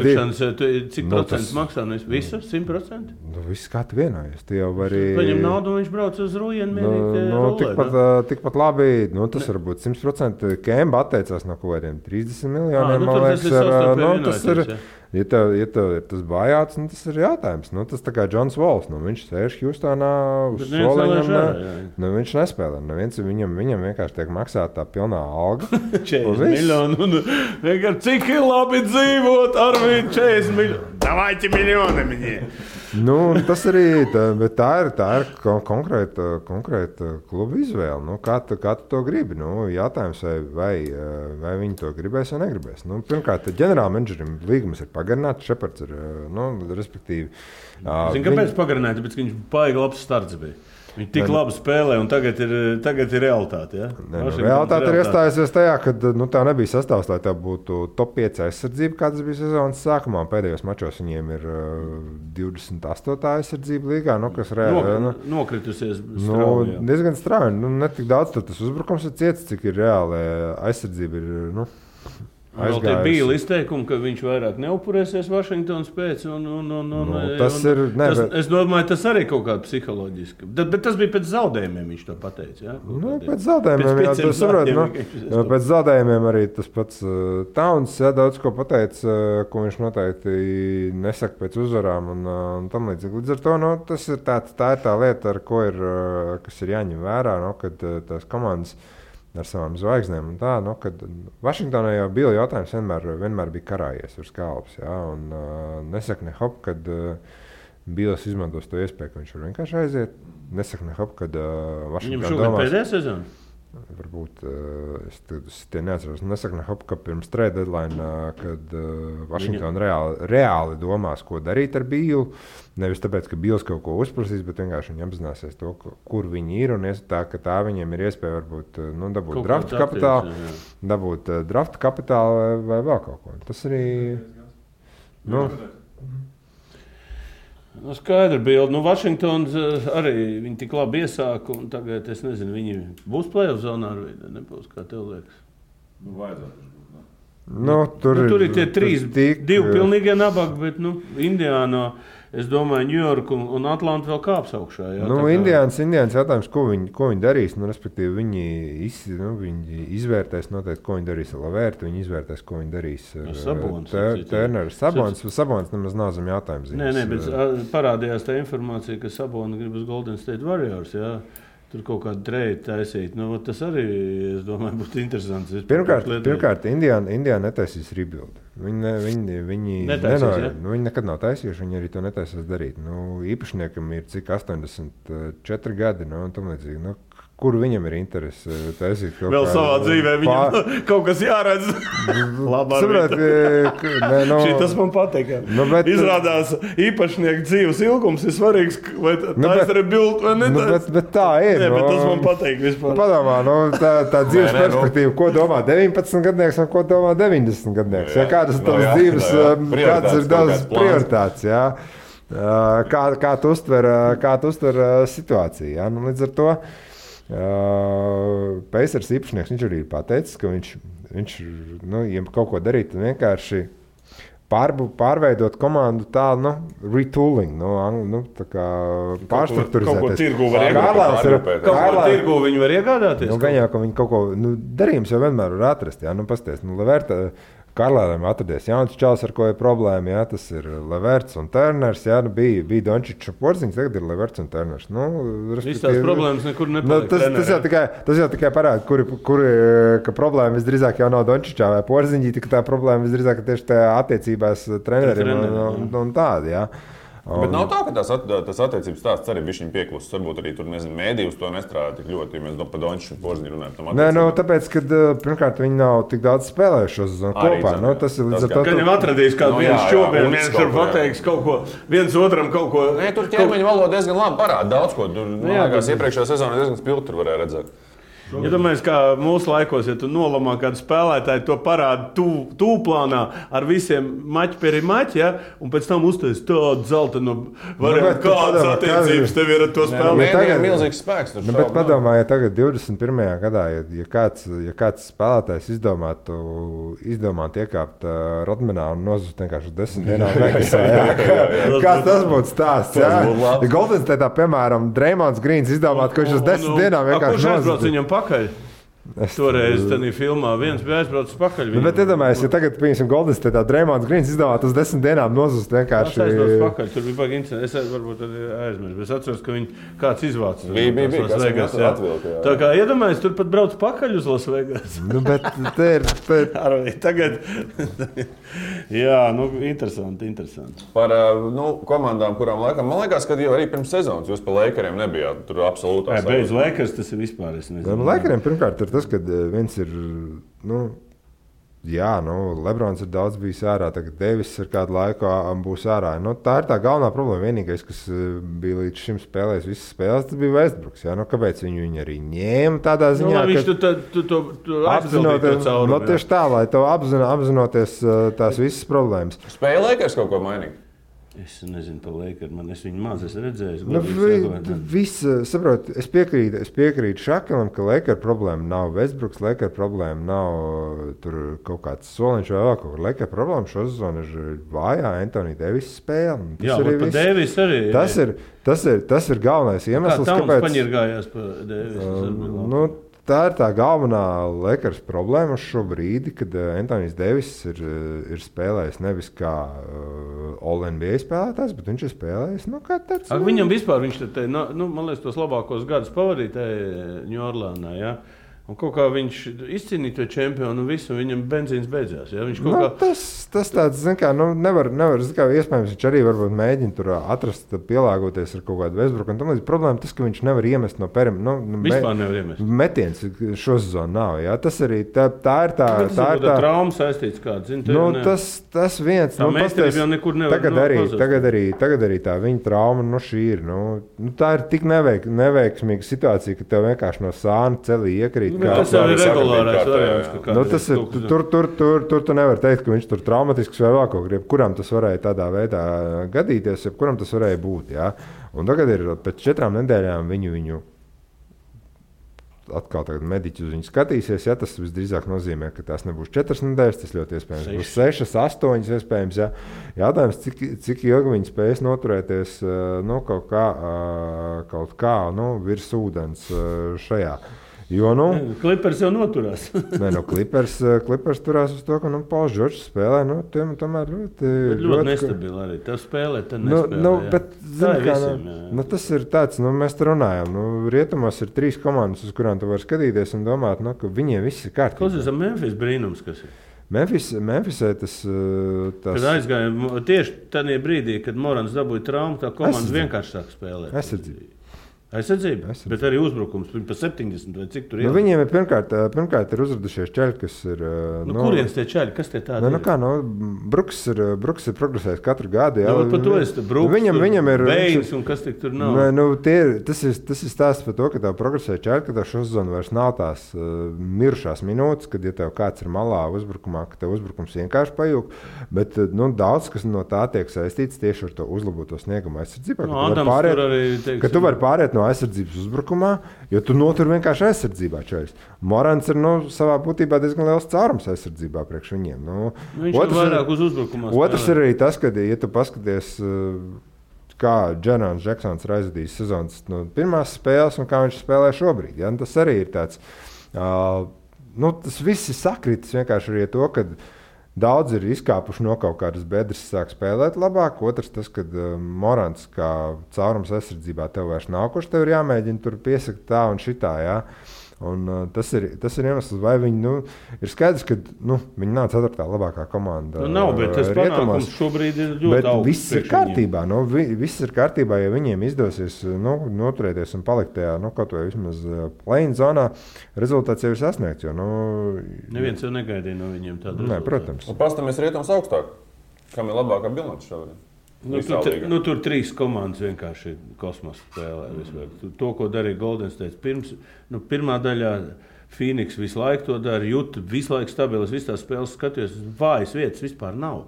cik procents maksā? Visu? 100%? Viss kā tu vienojies. Tu jau vari... Paņem naudu un viņš brauc uz Rujenu tikpat labi. Tas var būt 100%. Kemba atteicās no kaut kādiem 30 miljoniem. Tas ir... Ja tev ir tas bājāts, tas ir jautājums. Tas tā kā Džons Vols. Viņš sēž Hjustonā uz soliņam. Viņš nespēlē. Viņam vienkārši tiek maksāta tā pilnā alga. 40 miljoni. Cik ir labi dzīvot ar viņu 40 miljoni? Davайте miljoni viņiem. Tas arī tā ir konkrēta kluba izvēle. Kā tu to gribi? Jautājums, vai viņi to gribēs vai negribēs. Pirmkārt, ģenerālmenedžerim līgums ir pagarināts, Šepards ir, respektīvi. Zini, kāpēc pagarināts? Tāpēc, ka viņš baigi labs starts bija. Viņi tik labi spēlē, un tagad ir realitāte. Ja? Realitāte ir iestājusies tajā, ka tā nebija sastāvs, lai tā būtu top 5 aizsardzība, kāds bija sezonas sākumā. Pēdējos mačos viņiem ir 28. aizsardzība līgā, kas reāli nokritusies. Diezgan strauji. Ne tik daudz tas uzbrukums ir ciets, cik ir reāli aizsardzība ir. Vēl tie bija izteikumi, ka viņš vairāk neupurēsies Vašingtonas pēc. Es domāju, tas arī kaut kāda psiholoģiska. Bet tas bija pēc zaudējumiem, viņš to pateica. Ja? Pēc zaudējumiem, pēc zaudējumiem arī tas pats Towns daudz ko pateica, ko viņš noteikti nesaka pēc uzvarām un tam līdzīgi. Līdz ar to tā ir tā lieta, kas ir jāņem vērā, kad tās komandas ar savām zvaigznēm. Kad Vašingtonā jau bija jautājums, vienmēr bija karājies uz kalps. Ja? Nesaka ne hop, kad Bīls izmantos to iespēju, ka viņš var vienkārši aiziet. Nesaka ne hop, kad Vašingtonā domās... Viņam šogad pēdējā sezona? Varbūt es tie neatceros. Nesaka ne hop, ka pirms trade deadline, kad Vašingtona reāli domās, ko darīt ar Bīlu. Nevis tāpēc, ka Bīls kaut ko uzprasīs, bet vienkārši viņi apzināsies to, kur viņi ir. Un tā viņiem ir iespēja varbūt dabūt drafta kapitālu vai vēl kaut ko. Tas arī... Nu, skaidra bilde. Nu, Vašingtons arī viņi tik labi iesāka, un tagad, es nezinu, viņi būs play-off zonā ar vidi, nebūs, kā tev liekas. Nu, vajadzētu. Tur ir tie divi pilnīgie nabagi, bet, Indiānā, es domāju, Ņujorka un Atlanta vēl kāps augšā. Jā, Indiāns jautājums, ko viņi darīs, respektīvi, viņi izvērtēs noteikti, ko viņi darīs ar Lavērtu, viņi izvērtēs, ko viņi darīs ar Turneru. Sabons nemaz nav zem jautājums. Nē, bet parādījās tā informācija, ka Sabona grib uz Golden State Warriors, jā. Tur kaut kādu trade taisīt. Tas arī, es domāju, būtu interesants. Pirmkārt, Indiāna netaisīs rebuild. Viņi nekad nav taisījuši, viņi arī to netaisīs darīt. Īpašniekam ir cik 84 gadi, un tam līdzīgi. Kur viņam ir interese taisīt kaut vēl savā dzīvē, viņam kaut kas jāredz. Saprāt, tas man patīk. Izrādās īpašnieku dzīves ilgums ir svarīgs, vai tā ir rebuild vai ne. Bet tā ir. Bet tas man patīk vispār. Padomā, tā dzīves perspektīva, ko domā 19 gadnieks un ko domā 90 gadnieks. Kādas tavas dzīves, kādas ir daudz prioritātes, jā. Kā tu uztver situāciju, jā. Līdz ar to Pacers īpašnieks, viņš arī ir pateicis, ka viņš ja kaut ko darīt, tad vienkārši pārveidot komandu tā, retooling, tā kā pārstrukturizēties. Kaut ko tirgu var iegādāties. Kaut ko tirgu viņi var iegādāties. Gan jau, ka viņi kaut ko, darījums jau vienmēr var atrast, jā, pasties, Lavērta, Karlēram atradies jauns čals, ar ko ir problēma, jā, tas ir Lavērts un Turners, jā, bija Dončičs un Porziņš, tagad ir Lavērts un Turners. Viss tās problēmas nekur nepaliek. Tas jau tikai parāda, ka problēma visdrīzāk jau nav Dončičā vai Porziņģī, tā problēma visdrīzāk tieši tajā attiecībās treneriem un tādi, jā. Bet nav tā, ka tas attiecības stāsts arī bija viņa pieklusis. Varbūt arī tur, mēdī uz to nestrādā tik ļoti, ja mēs par Dončiču un Porziņu runājam. Nē, tāpēc, ka pirmkārt viņi nav tik daudz spēlējuši šo sezonu kopā. Tas ir līdz ar to. Ka viņam atradīs kādu viens šobrīd, viens var pateiks kaut ko, viens otram kaut ko. Nē, tur ķermeņa valoda diezgan labi parāda daudz ko. Tur, iepriekšējā sezonā diezgan spilgti tur varēja redzēt. Ja domājies, kā mūsu laikos, ja tu nolamā kādu spēlētāju, to parāda tūplānā ar visiem maķi peri maķi, ja? Un pēc tam uztais tādu zeltainu variantu, kādas attiecības tev ir ar to spēlētāju. Tagad ir milzīgs spēks. Bet padomā, ja tagad 21. gadā, ja kāds spēlētājs izdomātu iekāpt Rodmanā un nozust vienkārši 10 dienām Vegasā, kāds tas būtu stāsts, jā? Ja Golden State'ā, piemēram, Draymond Greens izdomātu, ka viņš uz 10 dienām vienkārši nozust. Toreiz tādā filmā viens bija aizbraucis pakaļ. Bet iedomājieties, ja tagad, piemēram, Golden State Draymond Greens izdomātu uz 10 dienām nozust vienkārši. Tas aizbraucis pakaļ, tur bija baigi incidents. Es varbūt arī aizmirsu, bet es atceros, ka viņi kāds izvācis. Bija, kas Vegas atvilka. Tā kā iedomājieties, tur pat brauc pakaļ uz Las Vegas. Bet te ir... Tagad... Jā, interesanti. Par komandām, kurām laikam, man liekas, ka jau arī pirms sezonas jūs pa Lakeriem nebijāt. Tur absolūtā. Bez Lakers tas ir vispār, es nezinu. Lakeriem pirmkārt ir tas, ka viens ir, Lebrons ir daudz bijis ārā, tagad Devis ir kādu laiku būs ārā. Tā ir tā galvenā problēma. Vienīgais, kas bija līdz šim spēlējis visas spēles, tas bija Westbrooks. Kāpēc viņu arī ņēma tādā ziņā? Viņš to apzinoties cauri. Tieši tā, lai to apzinoties tās visas problēmas. Spēja Lakers kaut ko mainīt? Es nezinu par Lakeriem, es viņu maz esmu redzējis. Es piekrītu Šakalam, ka Laker problēma nav Westbrooks, Laker problēma nav tur kaut kāds soliņš vai vēl kaut kur. Laker problēma šo sezonu ir vājā Anthony Davis spēle. Jā, par Davis arī. Tas ir galvenais iemesls, kāpēc... Kā paņirgājās par Davis? Tā ir tā galvenā Lakers problēma šobrīd, kad Anthony Davis ir spēlējis nevis kā All-NBA spēlētājs, bet viņš ir spēlējis kā tāds. Viņam vispār viņš man liekas, tos labākos gadus pavadīja Ņujorkā. Ja? Un kaut kā viņš izcīnīja to čempionu un visu, viņam benzīns beidzās. Ja? Tas tāds, nevar, iespējams, viņš arī varbūt mēģina tur atrast, pielāgoties ar kaut kādu Westbrooku. Un tam līdz problēma tas, ka viņš nevar iemest no vispār nevar iemest. Metiens šo sezonu nav. Ja? Tas arī tā ir tā. Tā ir tā trauma saistīts kāds. Tas viens. Tā meistarība jau nekur nevar Tagad arī tā viņa trauma šī ir. Tā ir tik neveiksmīga situācija, ka tev vienkārši no sāna celī iekrīt. Tas jau ir regulārais variants. Tas ir, tur tu nevar teikt, ka viņš tur traumatisks vai vēl kaut kur. Kuram tas varēja tādā veidā gadīties, kuram tas varēja būt. Jā. Un tagad ir pēc 4 nedēļām viņu atkal mediķi uz viņu skatīsies. Ja, tas visdrīzāk nozīmē, ka tās nebūs 4 nedēļas, tas ļoti iespējams būs 6, 8 iespējams. Ja. Jautājums, cik ilgi viņi spēs noturēties kaut kā virs ūdens šajā. Jo, Clippers jau noturās. Clippers turās uz to, ka Pauls Džordžs spēlē. Tomēr ļoti nestabili arī. Tā spēlē, tad nespēlē. Bet, tas ir tāds, mēs te runājam. Rietumos ir 3 komandas, uz kurām tu vari skatīties un domāt, ka viņiem viss ir kārtībā. Kas ir Memphis brīnums, kas ir? Memphisē tas... Kad aizgāja tieši tādā brīdī, kad Morans dabūja traumu, tā komanda vienkārši sāk spēlēt. Aizsardzība, bet arī uzbrukums. Viņi pa 70 vai cik tur ir. Viņiem ir pirmkārt ir uzradušies čaļi, kas ir... kurienes tie čaļi? Kas tie tādi ir? Bruks ir progresējis katru gadu. Jā. Par to es te Bruks, viņam ir Beinis un kas tik tur nav. Tas ir stāsts par to, ka tev progresēja čaļi, ka tev šo sezonu vairs nav tās mirušās minūtes, kad ja tev kāds ir malā uzbrukumā, ka tev uzbrukums vienkārši pajūg. Bet daudz, kas no tā tiek saistīts tieši ar to uzlaboto sniegumu aizsardzībā. Ka tu vari pāriet no aizsardzības uzbrukumā, jo tu notur vienkārši aizsardzībā. Čaļs. Morans ir savā būtībā diezgan liels caurums aizsardzībā priekš viņiem. Viņš ir vairāk uz uzbrukumā. Otrs ir arī tas, ka, ja tu paskaties, kā Džerons Džeksons ir aizvadījis sezonas pirmās spēles un kā viņš spēlē šobrīd. Ja? Tas arī ir tāds, tas viss ir sakritis vienkārši arī to, ka daudz ir izkāpuši no kaut kādas bedres, sāk spēlēt labāk. Otrs tas, ka Morants kā caurums aizsardzībā tev vairs nav, kurš tev ir jāmēģina tur piesakt tā un šitā. Jā. Un, tas ir iemesls, vai viņi ir skaidrs, ka viņi nav 4. labākā komanda. Nav, bet tas panākums šobrīd ir ļoti augsts. Viss ir kārtībā. Viss ir kārtībā, ja viņiem izdosies noturēties un palikt tajā, kaut vai vismaz play-in zonā, rezultāts jau ir sasniegts. Jo, neviens jau negaidīja no viņiem tādu rezultātu. Protams. Un pastāmies rietums augstāk. Kam ir labākā bilance šobrīd? Tur 3 komandas vienkārši kosmosa spēlē. To, ko darīja Golden State pirmā daļā, Phoenix visu laiku to dara, Juta visu laiku stabilas, visas tās spēles skatījos, vājas vietas vispār nav.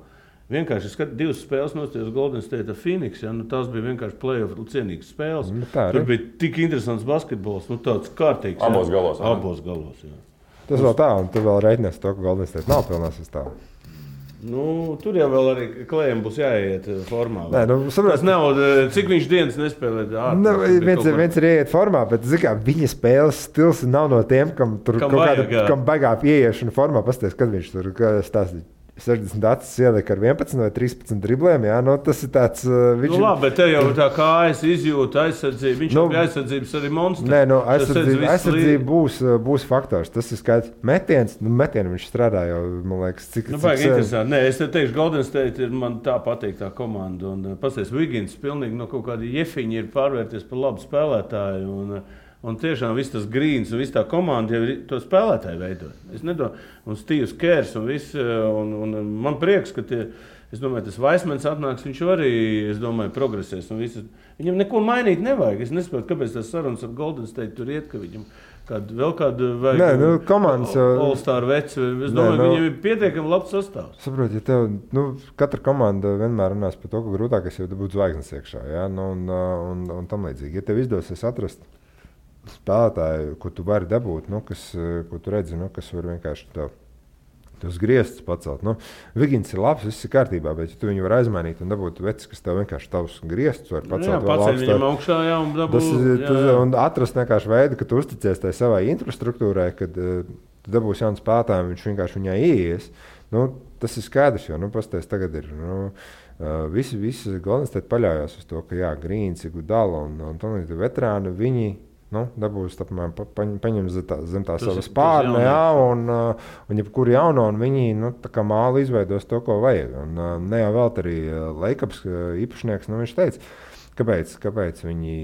Vienkārši 2 spēles nostājos Golden State ar Phoenix, tās bija vienkārši play-off cienīgas spēles. Tur bija tik interesants basketbols, tāds kārtīgs. Abos galos. Jā. Tas vēl tā, un tu vēl reiķinies to, ka Golden State nav pilnā sastāvā. Tur jau vēl arī Klējam būs jāiet formā. Tas nav, cik viņš dienas nespēlē. Viens ir ieiet formā, bet viņa spēles stils nav no tiem, kam baigā pieiešana formā. Pasties, kad viņš tur stāstīja. 60 acis ielika ar 11 vai 13 driblēm. Jā, tas ir tāds. Labi, bet te jau tā kājas izjūta aizsardzība. Viņš jau bija aizsardzības arī monstrs. Aizsardzība būs faktors. Tas ir skaidrs. Metienu viņš strādā jau, man liekas, cik interesanti. Nē, es te teikšu, Golden State ir man tā patīk tā komanda. Un pasties, Wiggins pilnīgi no kaut kāda jefiņa ir pārvērties par labu spēlētāju. Un tiešām viss tas Grīns un viss tā komanda jau ir to spēlētāju veidoja. Un Steve's Kers un man prieks, ka es domāju, tas Vaismans atnāks, viņš arī, progresēs. Viņam neko mainīt nevajag. Es nesaprotu, kāpēc tas sarunas ar Golden State tur iet, ka viņam vēl kādu vajag komandas All-Star veci. Es domāju, viņam ir pietiekami labs sastāvs. Saprot, ja tev, katra komanda vienmēr runās par to, ka grūtākais jau būt zvaigznes iekšā, ja? Un tam līdzīgi. Ja tev izdosies atrast spēlētāju, ko tu vari dabūt, ko tu redzi, kas var vienkārši tos griestus pacelt. Wiggins ir labs, viss ir kārtībā, bet ja tu viņu var aizmainīt un dabūt vecis, kas tev vienkārši tavus griestus var pacelt. Paceļ viņam augšā, un dabūt. Un atrast vienkārši veidu, ka tu uzticies tai savai infrastruktūrai, kad tu dabūsi jaunu spēlētāju, viņš vienkārši viņai ieies. Tas ir skaidrs, jo, pasties tagad ir, visi Golden State paļaujās uz to, ka Grīns, Iguodala un tam līdz veterāni, viņi dabūs paņem zem tā savas pārne, un jebkur jauno, un viņi tā kā māli izveidos to, ko vajag. Un ne jau vēl arī Lakers īpašnieks, viņš teica, kāpēc viņi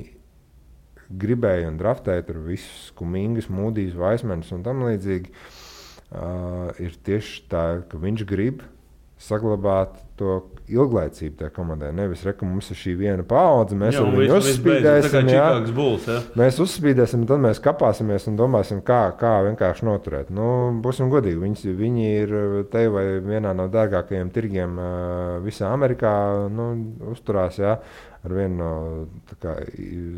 gribēja un draftēja tur visus Kumingas, Mūdijs, Vaismans un tam līdzīgi, ir tieši tā, ka viņš grib saglabāt to ilglaicību tajā komandai. Nevis, ka mums ir šī viena paudze, mēs viņu uzspīdēsim. Mēs uzspīdēsim, tad mēs kapāsimies un domāsim, kā vienkārši noturēt. Būsim godīgi, viņi ir te vai vienā no dārgākajiem tirgiem visā Amerikā, uzturās, ar vienu no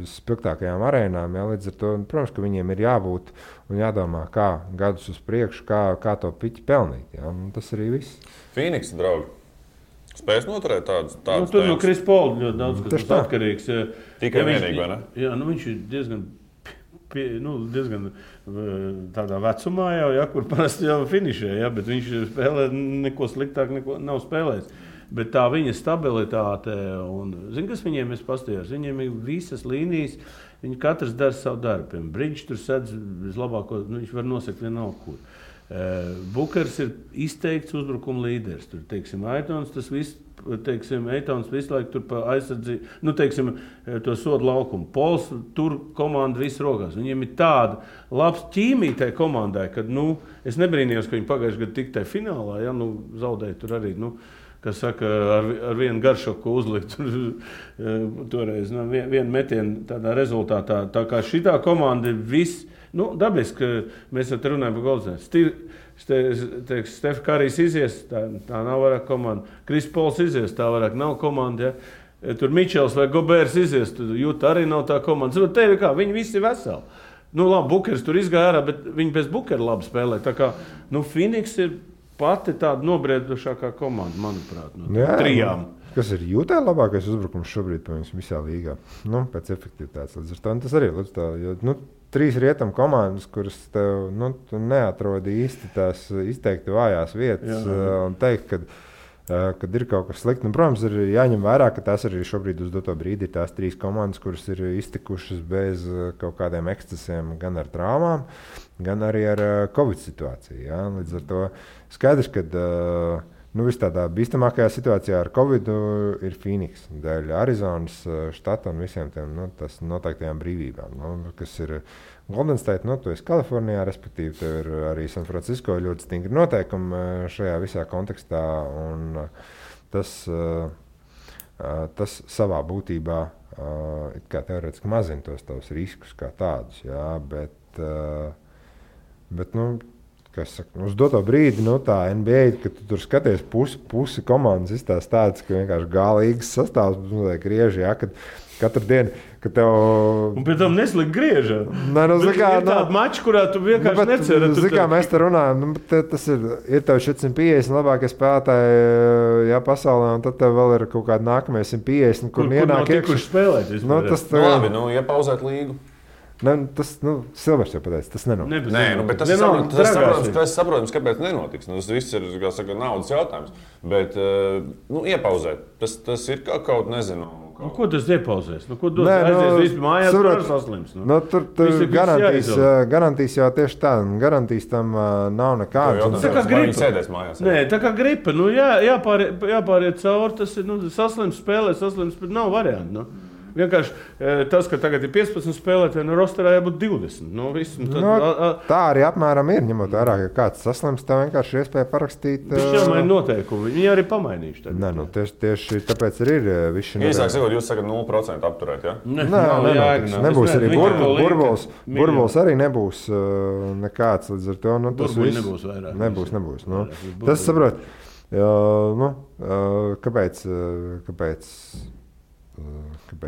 spilgtākajām arēnām. Līdz ar to, protams, ka viņiem ir jābūt un jādomā, kā gadus uz priekšu, kā to piķi pelnīt. Tas arī viss. Phoenix, draugi, spēs noturēt tādus tur no Chris Paul ļoti daudz, kas ir atkarīgs. Tikai vienīgi, vai ne? Jā, viņš ir diezgan tādā vecumā jau, kur parasti jau finišē, bet viņš spēlē neko sliktāk, nav spēlējis. Bet tā viņa stabilitāte, un kas viņiem ir pastījās? Viņiem ir visas līnijas, viņi katrs dara savu darbu. Bridge tur sedz vislabāko, viņš var nosakt vienalga, kur. Bukers ir izteikts uzbrukuma līderis. Tur, Aitons, Eitons visu laiku tur pa aizsardzību, to sodu laukumu. Pols tur komanda visu rokās. Viņiem ir tāda labs ķīmija tai komandai, kad, es nebrīnījos, ka viņi pagājuši gadu tik tai finālā, zaudēja tur arī, kas saka, ar vienu garšoku uzlikt toreiz, vienu metienu tādā rezultātā. Tā kā šitā komanda ir viss, dabiski, ka mēs te runājam par Goldsmith. Stef Karijs izies, tā nav vairāk komanda. Chris Pauls izies, tā vairāk nav komanda. Ja? Tur Mičels vai Gobērs izies, tur Juta arī nav tā komanda. Te ir kā, viņi visi ir veseli. Labi, Bukers tur izgāja ārā, bet viņi bez Bukera labi spēlē. Tā kā, Phoenix ir pati tāda nobriedušākā komanda, manuprāt, trijām. Kas ir Jutā labākais uzbrukums šobrīd visā līgā? Pēc efektivitātes. Līdz ar to tas arī līdz tā, jo, 3 rietam komandas, kuras tev tu neatrodi īsti tās izteikti vājās vietas un teikt, kad ir kaut kas slikti. Protams, ir jāņem vērā, ka tās arī šobrīd uz doto brīdi ir tās 3 komandas, kuras ir iztikušas bez kaut kādiem ekscesiem, gan ar traumām, gan arī ar Covid situāciju. Ja? Līdz ar to skaidrs, ka viss tādā bīstamākajā situācijā ar Covid ir Phoenix, dēļ Arizonas štata un visiem tiem noteiktajām brīvībām, kas ir Golden State, tu esi Kalifornijā, respektīvi, tev ir arī San Francisco ļoti stingri noteikumi šajā visā kontekstā, un tas savā būtībā it kā teorētiski mazina tos tavus riskus kā tādus, jā, bet uz doto brīdi, tā NBA, kad tu tur skaties pusi komandas izstās tādas, ka vienkārši galīgas sastāvs griež, jā, kad katru dienu, kad tev... Un pēc tam neslikt griežā. Ir tāda mača, kurā tu vienkārši neceri. Mēs te runājam, tas ir tev 450 labākie spēlētāji pasaulē, un tad tev vēl ir kaut kādi nākamie 150, kur ienāk iekšā spēlēt. Labi, iepauzēt līgu. Silvers jau pateica, tas nenotiks. Nē, bet tas saprotams, kāpēc nenotiks. Tas viss ir, kā saka, naudas jautājums. Bet, iepauzēt, tas ir kaut nezinu. Ko tas iepauzēs? Ko dos aizies vispār mājās, kur saslims? Tur garantīs jau tieši tā. Garantīs tam nav nekādas. Tā kā gripa. Sēdēs mājās. Nē, tā kā gripa. Jāpāriet cauri, tas ir saslims spēlē, saslims, bet nav variantu. Vienkārši tas, ka tagad ir 15 spēlētāji, rosterā jābūt 20. Tā arī apmēram ir, ņemot vērā, ka kāds saslims, tā vienkārši ir iespēja parakstīt. Viņš jau maina noteikumi, viņi arī pamainījuši. Tieši tāpēc arī ir visi. Īsāk sakot, jūs sakat 0% apturēt, ja? Nebūs arī burbulis arī nebūs nekāds līdz ar to. Burbuļi nebūs vairāk. Nebūs. Tas saprot, kāpēc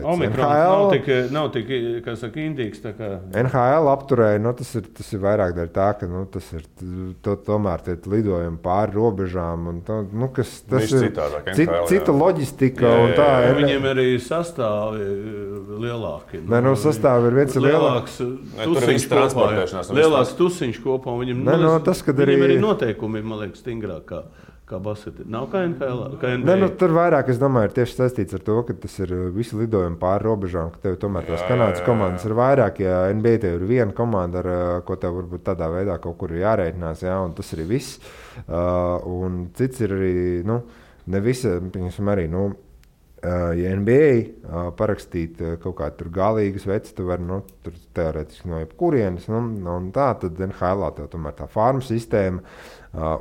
Omikrons nav tik kā saka, indīgs. NHL apturēja, tas ir vairāk dēļ tā, ka tomēr tie lidojumi pāri robežām. Tas ir cita loģistika. Viņiem arī sastāvi lielāki. Sastāvi ir viens lielāks. Lielāks tusiņš kopā. Viņiem arī noteikumi, man liekas, stingrāk kā basketbolā. Nav kā NHL. Tur vairāk, es domāju, ir tieši saistīts ar to, ka tas ir visi lidojumi pāri robežām, ka tev tomēr tās Kanādas komandas ir vairāk. Ja NBA tev ir viena komanda, ar ko tev varbūt tādā veidā kaut kur ir jārēķinās, un tas arī viss. Un cits ir arī, ne visi, piemēram, arī, ja NBA parakstīt kaut kādu tur galīgas vecis, tu vari, tur teorētiski no jebkurienes, un tā, tad NHL tev tomēr tā farma sistēma,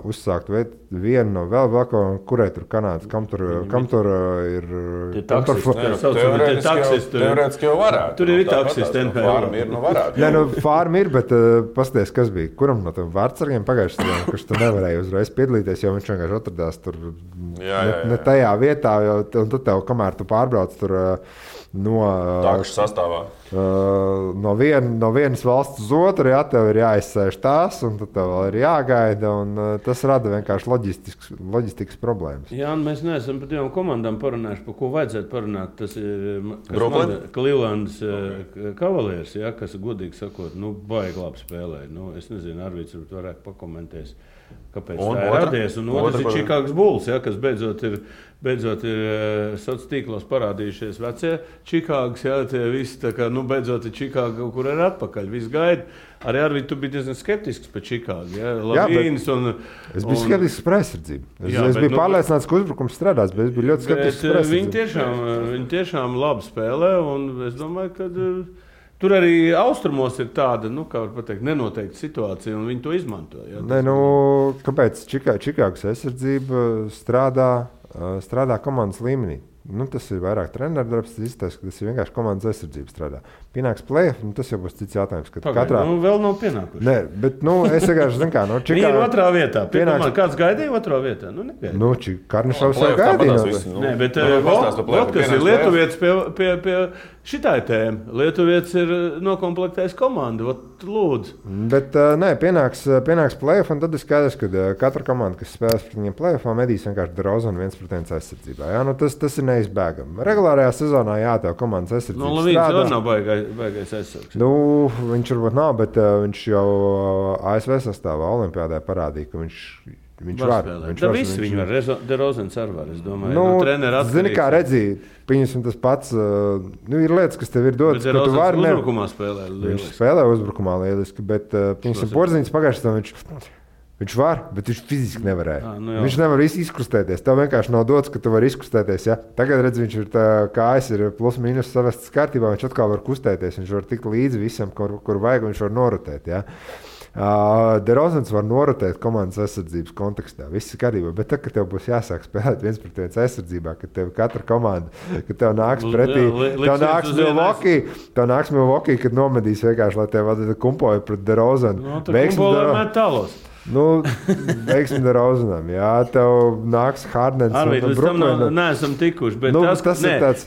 uzsākt vienu no vēl kaut kurai tur Kanādas, kam tur ir... Teorētiski jau varētu. Tur ir taksisti NHL. Farma ir, varētu. Nē, farma ir, bet pasties, kas bija, kuram no tiem vārdsargiem pagājušajā sezonā, kurš tur nevarēja uzreiz piedalīties, jo viņš vienkārši atradās tur ne tajā vietā, un tad tev, kamēr tu pārbrauc tur Takšu sastāvā. No vienas valsts uz otru, tev ir jāizsēž tās, un tad tev vēl ir jāgaida, un tas rada vienkārši loģistikas problēmas. Jā, un mēs neesam par divām komandām parunājuši, par ko vajadzētu parunāt. Tas ir Clevelands Cavaliers, kas, godīgi sakot, baigi labi spēlē. Es nezinu, Arvīds varētu pakomentēt, kāpēc tā ir radies. Un otrs ir Chicago Bulls, kas beidzot ir sociālos tīklos parādījušies vecie Čikāgas, tie visi tā kā, beidzot ir Čikāga, kur ir atpakaļ, viss gaida. Arī Arvīd, tu biji diezgan skeptisks par Čikāgu, Lavīnas es biju skeptisks par aizsardzību. Es biju pārliecināts, ka uzbrukums strādās, bet es biju ļoti skeptisks par aizsardzību. Viņi tiešām labi spēlē, un es domāju, ka tur arī austrumos ir tāda, kā var pateikt, nenoteikta situācija, un viņi to izmanto. Kāpēc Čikāgas aizsardzība strādā komandas līmenī? Tas ir vairāk treneru darbs, tas izstāsta, ka tas ir vienkārši komandas aizsardzība strādā. Pienāks play-off, tas jau būs cits jautājums. Vēl nav pienākuši. Nē, bet es vienkārši zinu, kā Čikāga... Viņi ir otrā vietā. Kāds gaidīja otrā vietā? Negaidīja. Karnišovs jau gaidīja. Nē, bet kas ir Lietuvietis pie šitai tēma. Lietuvietis ir nokomplektējis komandu. Lūdzu. Bet pienāks play-off, un tad ir skaidrs, ka katra komanda, kas spēlēs pret viņiem play-offā, medīs vienkārši DeRozanu 1% aizsardzībā. Tas ir neizbēgami. Regulārajā sezonā tev komandas aizsardzība strādā. Lavīns jau nav baigais aizsargs. Viņš varbūt nav, bet viņš jau ASV sastāvā Olimpiādē parādīja, ka viņš var. Viņi var. DeRozans arī var, es domāju. Zini, kā redzēji, pieņemsim tas pats. Ir lietas, kas tev ir dotas, ka tu vari. Uzbrukumā spēlē lieliski. Viņš spēlē uzbrukumā lieliski, bet pieņemsim Porziņš pagājušajā viņš var, bet viņš fiziski nevarēja. Viņš nevar izkustēties. Tev vienkārši nav dots, ka tu vari izkustēties. Ja? Tagad redz, viņš ir kājas ir plus mīnus savestas kārtībā, viņš atkal var kustēties. Viņš var tikt līdzi visam, kur vajag, viņš var norotēt. Ja? DeRozans var norotēt komandas aizsardzības kontekstā. Viss ir kārtībā, bet tad, kad tev būs jāsāk spēlēt 1% aizsardzībā, kad tev katra komanda, kad tev nāks pretī, tev nāks Milwaukee, kad nomedīs vienkārši, lai tev kumpoja pret DeRozanu. Veiksim DeRozanam. Jā, tev nāks Hardens. Līdz tam neesam tikuši. Bet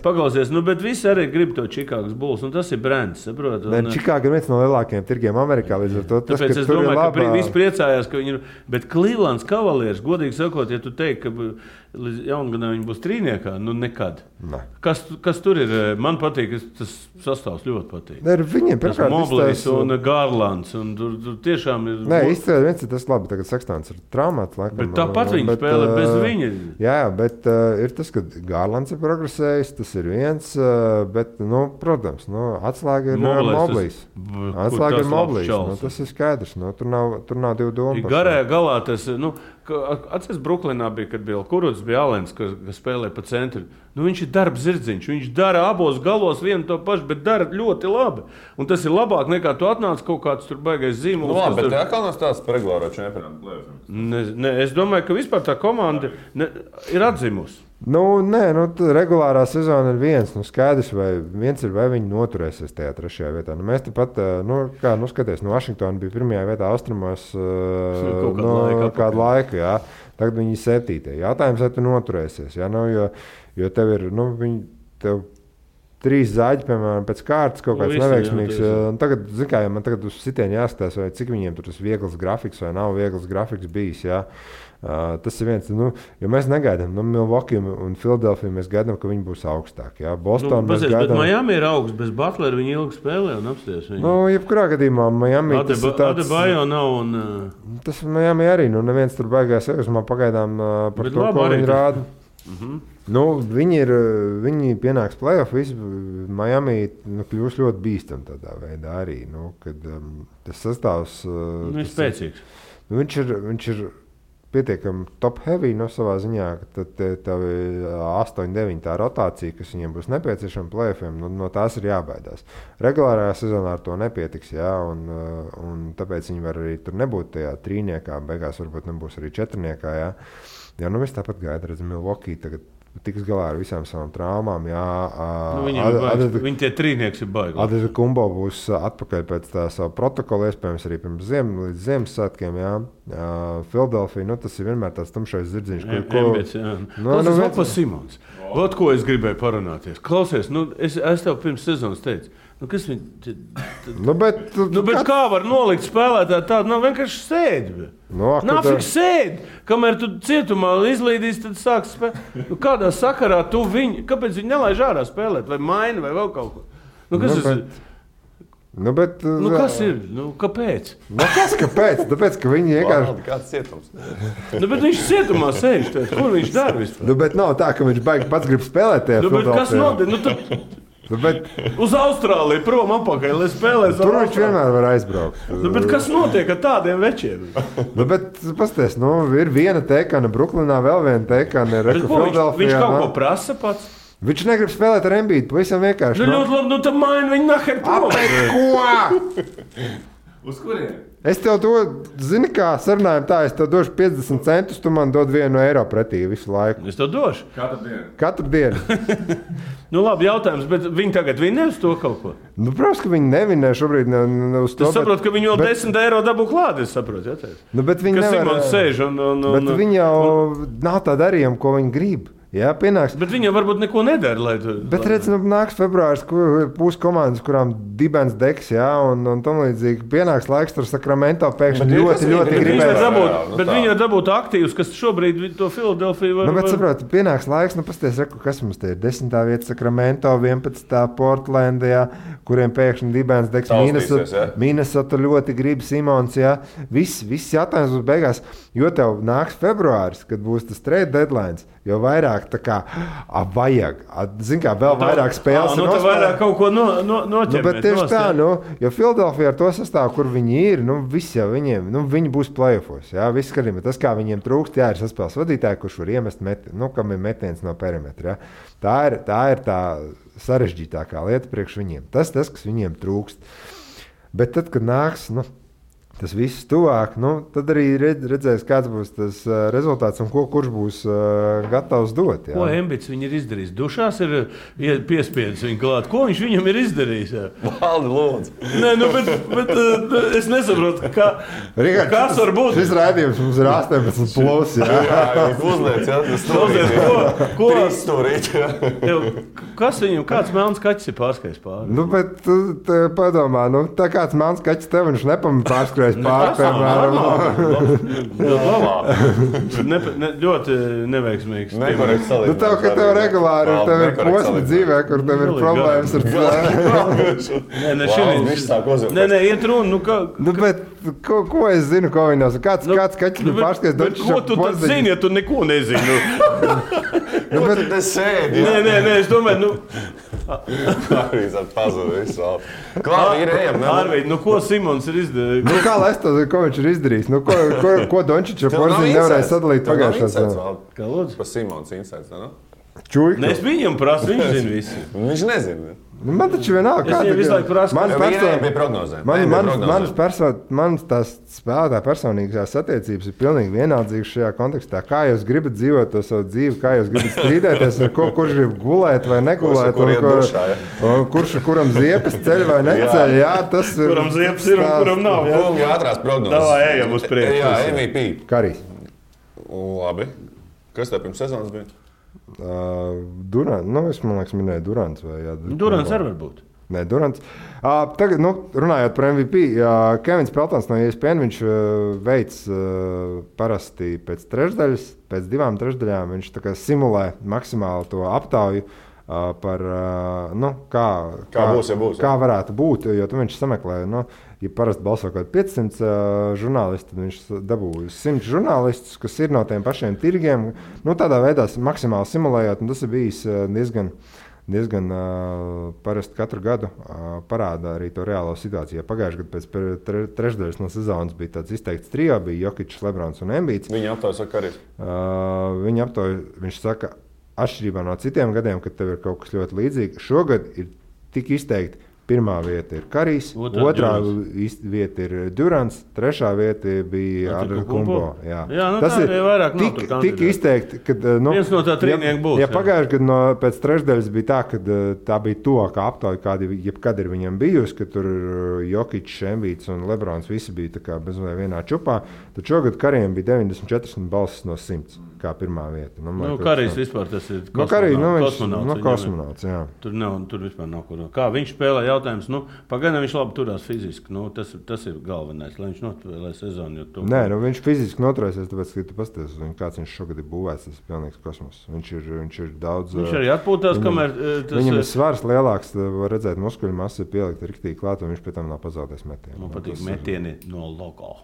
paklausies, bet visi arī grib to Čikāgas Bulls, un tas ir brands, saprot? Čikāga ir viens no lielākajiem tirgiem Amerikā, līdz ar to tas, tāpēc es domāju, ka visi priecājās, ka viņi ir, bet Clevelands Cavaliers, godīgi sakot, ja tu teiksi, ka līdz jaungadā viņi būs trīniekā, nekad. Ne. Kas tur ir? Man patīk, tas sastāvs ļoti patīk. Viņiem pirmkārt Moblīs un Garlands, un tur tiešām ir... Nē, izcēlē viens ir tas labi, tagad Sextons ir traumāts. Bet tāpat viņi spēlē bez viņa. Jā, bet ir tas, ka Garlands ir progresējis, tas ir viens, bet, protams, atslēga ir Moblīs. Atslēga ir Moblīs, tas ir skaidrs, tur nav divu domu. Garajā galā tas, atceries Bruklinā bija, kad bija Kuruds, bija Alens, kas spēlē pa centru. Viņš ir darba zirdziņš, viņš dara abos galos vienu to pašu, bet dara ļoti labi. Un tas ir labāk nekā tu atnāc kaut kāds tur baigais zīmols. Bet tā kā nav stāsts par regulāro čempionātu plēsoņu. Es domāju, ka vispār tā komanda ir atzimusi. Regulārā sezona ir viens. Skaidrs, vai viņi noturēsies tajā trešajā vietā. Mēs tepat, skaties, Vašingtona bija pirmajā vietā austrumos kādu laiku. Jā. Tagad viņi ir 7. Jautājums, vai tu noturēsies. Jā, jo tev ir, tev 3 zaļi, piemēram, pēc kārtas kaut kāds neveiksmīgs. Tagad, man tagad uz sitienu jāskatās, vai cik viņiem tur tas viegls grafiks vai nav viegls grafiks bijis. Jā. Tas ir viens, jo mēs negaidām. Milwaukee un Philadelphia mēs gaidām, ka viņi būs augstāki. Jā. Boston mēs gaidām. Bet Miami ir augsts, bez Butlera viņi ilgi spēlē un apsties viņu. Jebkurā gadījumā Miami tas ir tāds... Adebayo nav un... Tas Miami arī, neviens tur baigās man pagaidām par to, ko viņi rāda. Viņi pienāks play-off, Miami kļūs ļoti bīstam tādā veidā arī, kad tas sastāvs... ir spēcīgs. Viņš ir pietiekami top heavy no savā ziņā, ka tad tev 8-9 tā rotācija, kas viņiem būs nepieciešama play-offiem, no tās ir jābaidās. Regulārajā sezonā ar to nepietiks, jā, un tāpēc viņi var arī tur nebūt tajā trīniekā, beigās varbūt nebūs arī četrniekā, jā. Jā, nu viss tāpat gaida, redz, Milwaukee tagad tiks galā ar visām savām traumām. Jā, viņi tie trīnieks ir baigi. Adetokumbo būs atpakaļ pēc tā savu protokolu, iespējams arī pirms līdz Ziemassvētkiem. Philadelphia, tas ir vienmēr tāds tumšais zirdziņš. Klausies, Simons. Ot, ko es gribēju parunāties. Klausies, es tev pirms sezonas teicu. Kas viņi... bet kā var nolikt spēlētāju tādu? Nav vienkārši sēdi. Nāfik sēdi. Kamēr tu cietumā izlīdīs, tad sāks spēlēt. Kādā sakarā tu viņu... Kāpēc viņi nelaiž ārā spēlēt? Vai maina, vai vēl kaut ko? Kas ir? Kāpēc? Kāpēc? Tāpēc, ka viņi vienkārši... Kāds cietums? Bet viņš cietumā sēž. Kur viņš dara vispār? Bet nav tā, ka viņš baigi pats grib spēlēt tajā bet kas notiek? Uz Austrāliju prom apakaļ, lai spēlēs. Tur viņš vienmēr var aizbraukt. Bet kas notiek ar tādiem večiem? Pasties, ir viena teikana Bruklinā, vēl viena teikana Philadelphijā. Viņš kaut ko prasa pats? Viņš negrib spēlēt ar Embiidu, pavisam vienkārši. Ļoti labi, tad maina viņu naher prom. Ko? Uz kuriem? Es tev to, zini kā, sarunājam tā, es tev došu 50 centus, tu man dod €1 pretī visu laiku. Es tev došu? Katru dienu. Labi, jautājums, bet viņi tagad vinē uz to kaut ko? Protams, ka viņi nevinē šobrīd uz to. Es saprotu, ka viņi vēl €10 dabū klāt, es saprotu, jātēc. Bet viņi nevar... Simons sēž Bet viņi jau nav tā darījuma, ko viņi grib. Jā, pienāks. Bet viņi varbūt neko nedara. Bet redz, nāks februāris, kur būs komandas, kurām dibens degs, jā, un tam līdzīgi pienāks laiks tur Sacramento pēkšņi ļoti gribēs. Bet viņi var dabūt aktīvus, kas šobrīd to Philadelphia var... Bet saproti, pienāks laiks, pasties, kas mums te ir 10. vieta Sacramento, 11. Portland, jā, kuriem pēkšņi dibens degs, Minnesota ļoti grib Simons, jā. Viss jautājums būs beigās, jo tev nāks februāris, kad būs tas trade deadlines, jo vairāk tā kā vajag. Zin kā, vēl vairāk spēles ir nospēlēt. Vairāk kaut ko noķermēt. Bet tieši tā, jo Philadelphia ar to sastāvu, kur viņi ir, viss jau viņiem, viņi būs play-offos, jā, viss skatījumā. Tas, kā viņiem trūkst, jā, ir saspēles vadītāji, kurš var iemest kam ir metiens no perimetra, jā. Tā ir tā sarežģītākā lieta priekš viņiem. Tas, kas viņiem trūkst. Bet tad, kad nāks, tas viss tuvāk, tad arī redzēs, kāds būs tas rezultāts un kurš būs gatavs dot. Jā. Ko Embiids viņi ir izdarījis? Dušās ir piespiedis viņu klāt. Ko viņš viņam ir izdarījis? Valdi, lūdzu. Nē, bet es nesaprotu, kas var būt. Šis raidījums mums ir 18 plus, jā. Jā, uzliec, jā, tas stūrīt. Ko? Stūrīt, jā. Kas viņam, kāds melns kaķis ir pārskajis pāri? Bet padomā, tā kāds melns kaķis tev viņš nepamēr pārskajis. Ļoti neveiksmīgs. Tev regulāri ir posmi dzīvē, kur tev ir problēmas ar cilvēku. Nē, iet runa. Bet ko es zinu, ko viņi nav? Kāds kaķis ir pārskajis? Ko tu tad zini, ja tu neko nezini? Bet tu te sēdi. Nē, es domāju, Arvīds ar pazudu visu vēl. Klāvi ir ejam. Arvīd, ko Simons ir izdarījis? Kā lai es to zinu, ko viņš ir izdarījis? Ko Dončiča porziņu nevarēja sadalīt pagājušā sezonā? Kā lūdzu? Pa Simons insights, ne? Čuļka. Es viņam prasu, viņš zina visu. Viņš nezina. Man taču vienalga, kāda ir. Es viņam visu laiku prasu. Bija prognozēm. Manas tās spēlētā personīgās attiecības ir pilnīgi vienaldzīgas šajā kontekstā. Kā jūs gribat dzīvot to savu dzīvi, kā jūs gribat strīdēties, kurš grib gulēt vai negulēt, kuram ziepes ceļ vai neceļ. Jā, tas ir. Kuram ziepes ir un kuram nav. Kungi ātrās prognozes. Davā, ejam uz priekšu. Jā, MVP. Karijs. Labi. Kas tev pirms sezonas bija? Durants, es man liekas, minēju Durants. Durants arī var būt. Nē, Durants. Tagad, runājot par MVP, Kevins Peltons no ESPN, viņš veic parasti pēc trešdaļas, pēc 2 trešdaļām, viņš tā kā simulē maksimāli to aptauju par, kā būs, ja būs. Kā varētu būt, jo tu viņš sameklē, ja parasti balso kaut 500 žurnālisti, tad viņš dabūja 100 žurnālistus, kas ir no tiem pašiem tirgiem. Tādā veidā maksimāli simulējot, un tas ir bijis diezgan parasti katru gadu parāda arī to reālo situāciju. Ja pagājušajā gadā pēc trešdaļas no sezonas bija tāds izteikts trio, bija Jokičs, Lebrons un Embiids. Viņa aptauja saka arī. Viņa aptauja, viņš saka, atšķirībā no citiem gadiem, kad tev ir kaut kas ļoti līdzīgs, šogad ir tik izteikti. Pirmā vieta ir Karijs, otrā vieta ir Durants, trešā vieta bija Antetokounmpo. Jā, tas ir vairāk tik izteikti, ka viens no tā trīnieku būs. Ja pagājušajā gadā pēc trešdaļas bija tā, ka tā bija tuvākā aptauja, kāda jebkad ir viņam bijusi, ka tur Jokičs, Embiids un Lebrons visi bija tā kā bezmazliet vienā čupā, tad šogad Karijam bija 94 balsis no 100, kā pirmā vieta. Karijs vispār tas ir kosmonauts. Jā. Tur vispār nav ko. Kā viņš spēlē? Jautājums, pagaidām viņš labi turās fiziski. Tas ir galvenais, lai viņš noturē sezonu. Nē, viņš fiziski noturēsies, tāpēc, ka tu pasties, kāds viņš šogad ir būvēts. Tas ir pilnīgs kosmos. Viņš ir daudz. Viņš arī atpūtās, kamēr viņam ir svars lielāks, var redzēt, muskuļu masa ir pielikt riktīgi klāt, un viņš pēc tam nav pazaudējis metienu. Man patīk metieni no logo.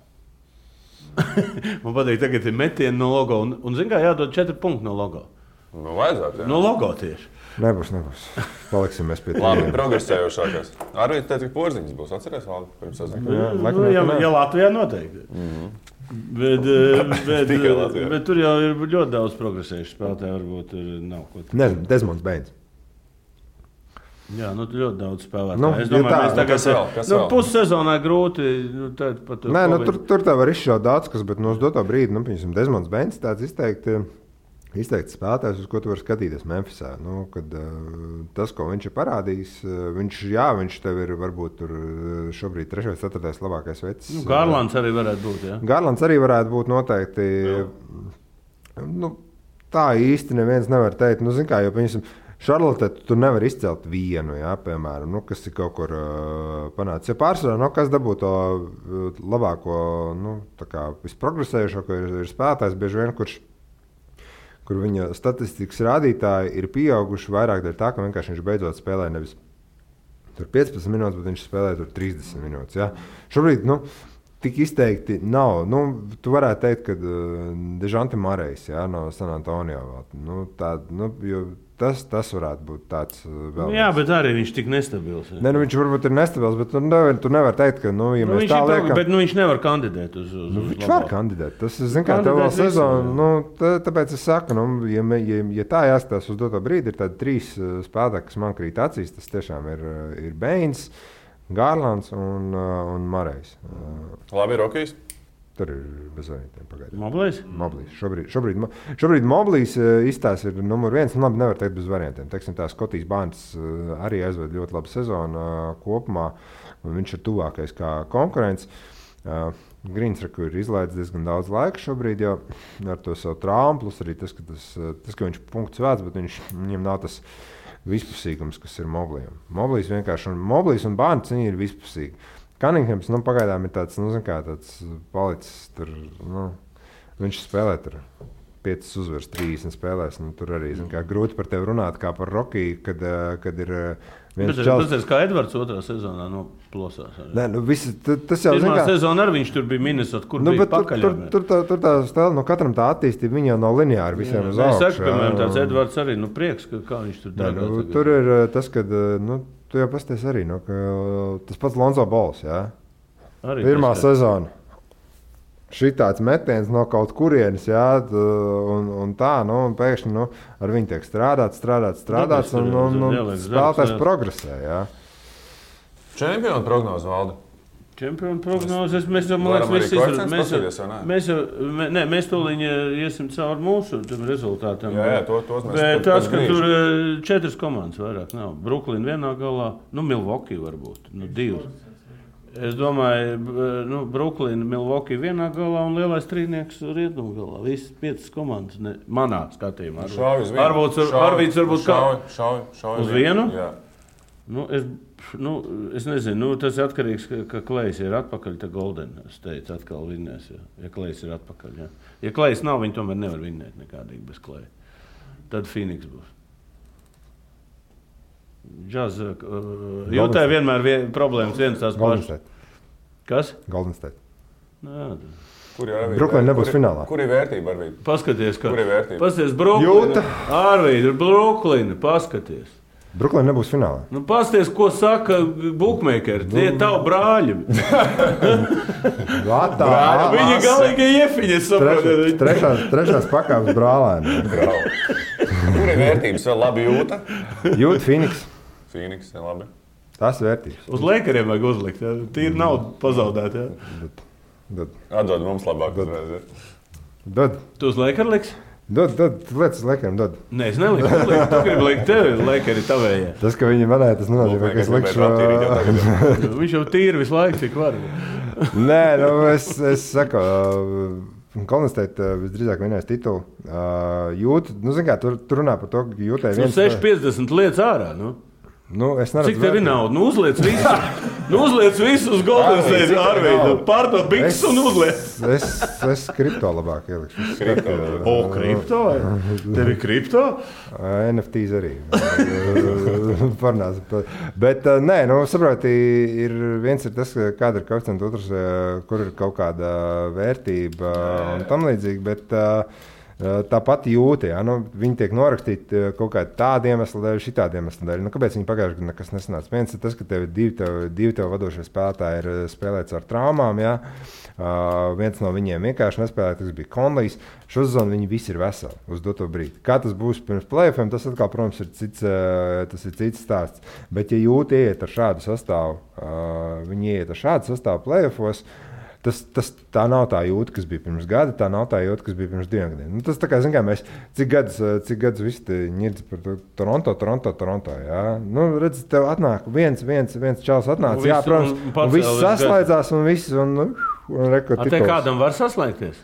Man patīk, tagad ir metieni no logo. Un zin kā, jādod 4 punkti no logo. Vajadzētu, jā. No logo tieši. Nebūs. Paliksimies pie tā. Labi, progresējošākās. Arī teikt, ka porziņas būs. Atceries, Valdi, pirms sezonu? Ja Latvijā noteikti. Bet tur jau ir ļoti daudz progresējuši spēlētāji. Varbūt nav ko tādu. Nezinu, Desmonds Bains. Jā, ļoti daudz spēlētāju. Es domāju, mēs tagad pussezonā grūti. Tur tā var izšaut daudz kas, bet uz doto brīdi, piemēram, Desmonds Bains tāds izteikts spēlētājs, uz ko tu vari skatīties Memphisā. Tas, ko viņš ir parādījis, viņš tev ir varbūt tur šobrīd 3. 4. labākais vecs. Garlands arī varētu būt, jā? Garlands arī varētu būt noteikti. Tā īsti neviens nevar teikt. Zin kā, jo, piemēram, Šarlotē tu nevar izcelt vienu, jā, piemēram, kas ir kaut kur panācis. Ja pārsvarā, kas dabū to labāko, visprogresējušāko ir spēlētājs, bieži vien, kur viņa statistikas rādītāji ir pieauguši vairāk dēļ tā, ka vienkārši viņš beidzot spēlē nevis 15 minūtes, bet viņš spēlē 30 minūtes. Ja? Šobrīd tik izteikti nav. Tu varētu teikt, ka Dežante Marejs no San Antonio. Tas varētu būt tāds vēl. Jā, bet arī viņš tik nestabils. Ne, viņš varbūt ir nestabils, bet tu nevar teikt, ka, ja mēs tā liekam... Bet viņš nevar kandidēt uz viņš var kandidēt. Tas, kā, tev vēl sezonu, tāpēc es saku, ja tā jāskatās uz doto brīdi, ir tādi 3 spēlētāji, kas man krīt acīs, tas tiešām ir Bains, Garlands un Marejs. Labi, Rokijs. Tur ir bez variantiem pagaidām. Moblīs? Šobrīd Moblīs izstāsts ir numur 1. Labi, nevar teikt bez variantiem. Teiksim, tā Skotijas Barns arī aizved ļoti labu sezonu kopumā. Viņš ir tuvākais kā konkurents. Grīns ir izlaidis diezgan daudz laika šobrīd jau ar to savu traumu. Plus arī tas, ka viņš punkts vērts, bet viņam nav tas vispusīgums, kas ir Moblījam. Moblīs un Barns ir vispusīgi. Cunninghams pagaidām ir tāds, tāds palicis tur, viņš spēlē tur 5 uzvaras, 30 spēlēs, tur arī, grūti par tevi runāt kā par Rokiju, kad ir viens čals. Tas kā Edvards 2. sezonā plosās. Nē, tas jau, pirmā sezona arī viņš tur bija Minnesota, kur bija pakaļ. Tur tā stēla, katram tā attīstība, viņa jau nav lineāra visiem uz augšu. Es saku, piemēram, tāds Edvards arī, prieks, kā viņš tur darbā. Tur ir tas, kad, tu jau pasties arī, tas pats Lonzo Balls, jā? Arī pirmā sezona. Šitāds metiens no kaut kurienes, jā, un tā, un pēkšņi ar viņu tiek strādāts, un spēlētājs progresē, jā. Čempionu prognozi, Valdi? Čempionu prognozes, mēs jau, man liekas, mēs tūlīt iesim cauri mūsu rezultātam. Jā, tos mēs. Bet tas, ka tur 4 komandas vairāk nav. Brooklyn vienā galā, Milwaukee varbūt, 2. Es domāju, Brooklyn, Milwaukee vienā galā un lielais trīnieks rietumu galā. Visas 5 komandas manā skatījumā. Arvīts varbūt kā? Šauj uz vienu? Jā. Es nezinu, tas ir atkarīgs, ka Klejs ir atpakaļ, tad Golden State atkal vinnēs. Ja Klejs ir atpakaļ, jā. Ja Klejs nav, viņi tomēr nevar vinnēt nekādīgi bez Kleja. Tad Phoenix būs. Jūtā vienmēr problēmas viens tās pašas. Kas? Golden State. Brooklyn nebūs finālā. Kur ir vērtība, Arvīd? Paskaties, kur ir vērtība? Pasties Brooklyn. Arvīd, Brooklyn, paskaties. Brooklyn nebūs finālā. Nu, pasties, ko saka bookmakeri. Tie ir tavi brāļi. Viņi galīgi iefiņi, es saprotu. Trešās pakāpes brālēni. Kur ir vērtības vēl labi jūta? Jūt Phoenix. Phoenix, ja labi. Tas vērtības. Uz Lakeriem vajag uzlikt. Ja? Tīri naudu pazaudēt. Ja? Atdod mums labāk uzreiz. Ja? Dod. Tu uz Lakeru liks? Dod, lietas uz Lakeriem, dod. Nē, es neliku. Tu gribi likt tevi, Lakeri tavējā. Tas, ka viņi manēja, tas nenozīmē, ka es likšu. Viņš jau tīri visu laiku, cik var. Nē, nu, es saku, Golden State visdrīzāk vienais titulu. Jūt, nu, zin kā, tur runā par to, ka jūtēja viens... 6,50 lietas ārā, nu. Nu, es neredzu. Cik tev ir nauda? Nu, uzliec visu uz Golden State Arvīdu. Pārdod biks un uzliec. Es kripto labāk ielikšu. Kripto? Tev ir kripto? NFTs arī. Parnās. Bet, nē, nu, saproti, viens ir tas, kāda ir koeficienta, otrs, kur ir kaut kāda vērtība un tam līdzīgi, bet... Tāpat jūta, ja? Nu, viņi tiek norakstīti kaut kādā tāda iemesla dēļ, šitāda iemesla dēļ. Nu, kāpēc viņi pagājušajā gadā nekas nesanāca? Viens ir tas, ka tev ir divi tev vadošie spēlētāji ir spēlēts ar traumām. Ja? Viens no viņiem vienkārši nespēlēja, tas bija Conleys. Šo sezonu viņi visi ir veseli uz doto brīdi. Kā tas būs pirms playoffiem, tas atkal, protams, ir cits stāsts. Bet, ja jūta ieiet ar šādu sastāvu, viņi ieiet ar šādu sastāvu playoffos, tā nav tā jūta, kas bija pirms gada, tā nav tā jūta, kas bija pirms 2 gadiem. Nu, tas tā kā, zin kā, mēs cik gadus visi ņirds par Toronto, jā. Nu, redz, tev atnāk viens čals atnāca, jā, protams, un viss saslēdzās un viss, un rekord tituls. Te kādam var saslēgties?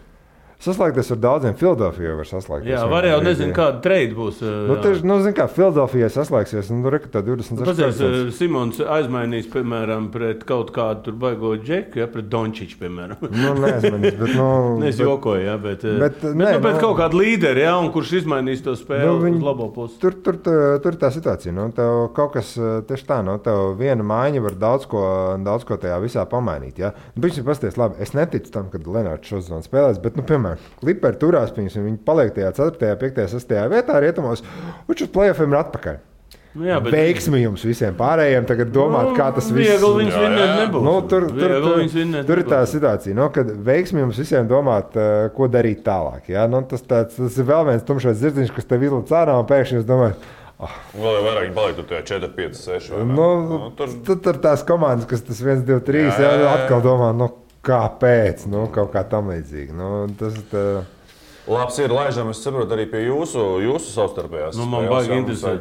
Saslēgties ar daudziem, Philadelphijā var saslēgties. Jā, var jau nezinu, kāda trade būs. Zin kā, Philadelphijā saslēgsies, nu, rekord tā 26%. Pazies, Simons aizmainīs, piemēram, pret kaut kādu tur baigo džeku, ja, pret Dončiču, piemēram. Nu, neaizmainīs, bet, nu... Es jokoju, ja, bet kaut kādu līderi, ja, un kurš izmainīs to spēli uz labo pusi. Tur tā situācija, nu, tev kaut kas tieši tā, nu, tev viena maiņa var daudz ko tajā visā pamainīt, ja. Nu, pasties, labi, es neticu tam, kad Lenārds šo sezonu spēlēs, bet, nu, piemēram, Clipperi turās, viņi paliek tajā 4., 5., 6. vietā rietumos, un uz play-offiem ir atpakaļ. Jā, bet... Veiksmi jums visiem pārējiem tagad domāt, kā tas viss... Viegli viņus vinnēt nebūs. Nu, tur ir tā situācija, nu, kad veiksmi jums visiem domāt, ko darīt tālāk. Ja? Nu, tas ir vēl viens tumšais zirdziņš, kas tev izlaiž ārā, un pēkšņi jūs domājat, vēl jau vairāk paliek tur 4, 5, 6. Tur tās komandas, kas tas 1, 2, 3, atkal domā, nu, kāpēc? Nu, kaut kā tam līdzīgi. Nu, tas labs ir, laižam, es saprotu arī pie jūsu savstarpējās. Nu, man baigi interesē,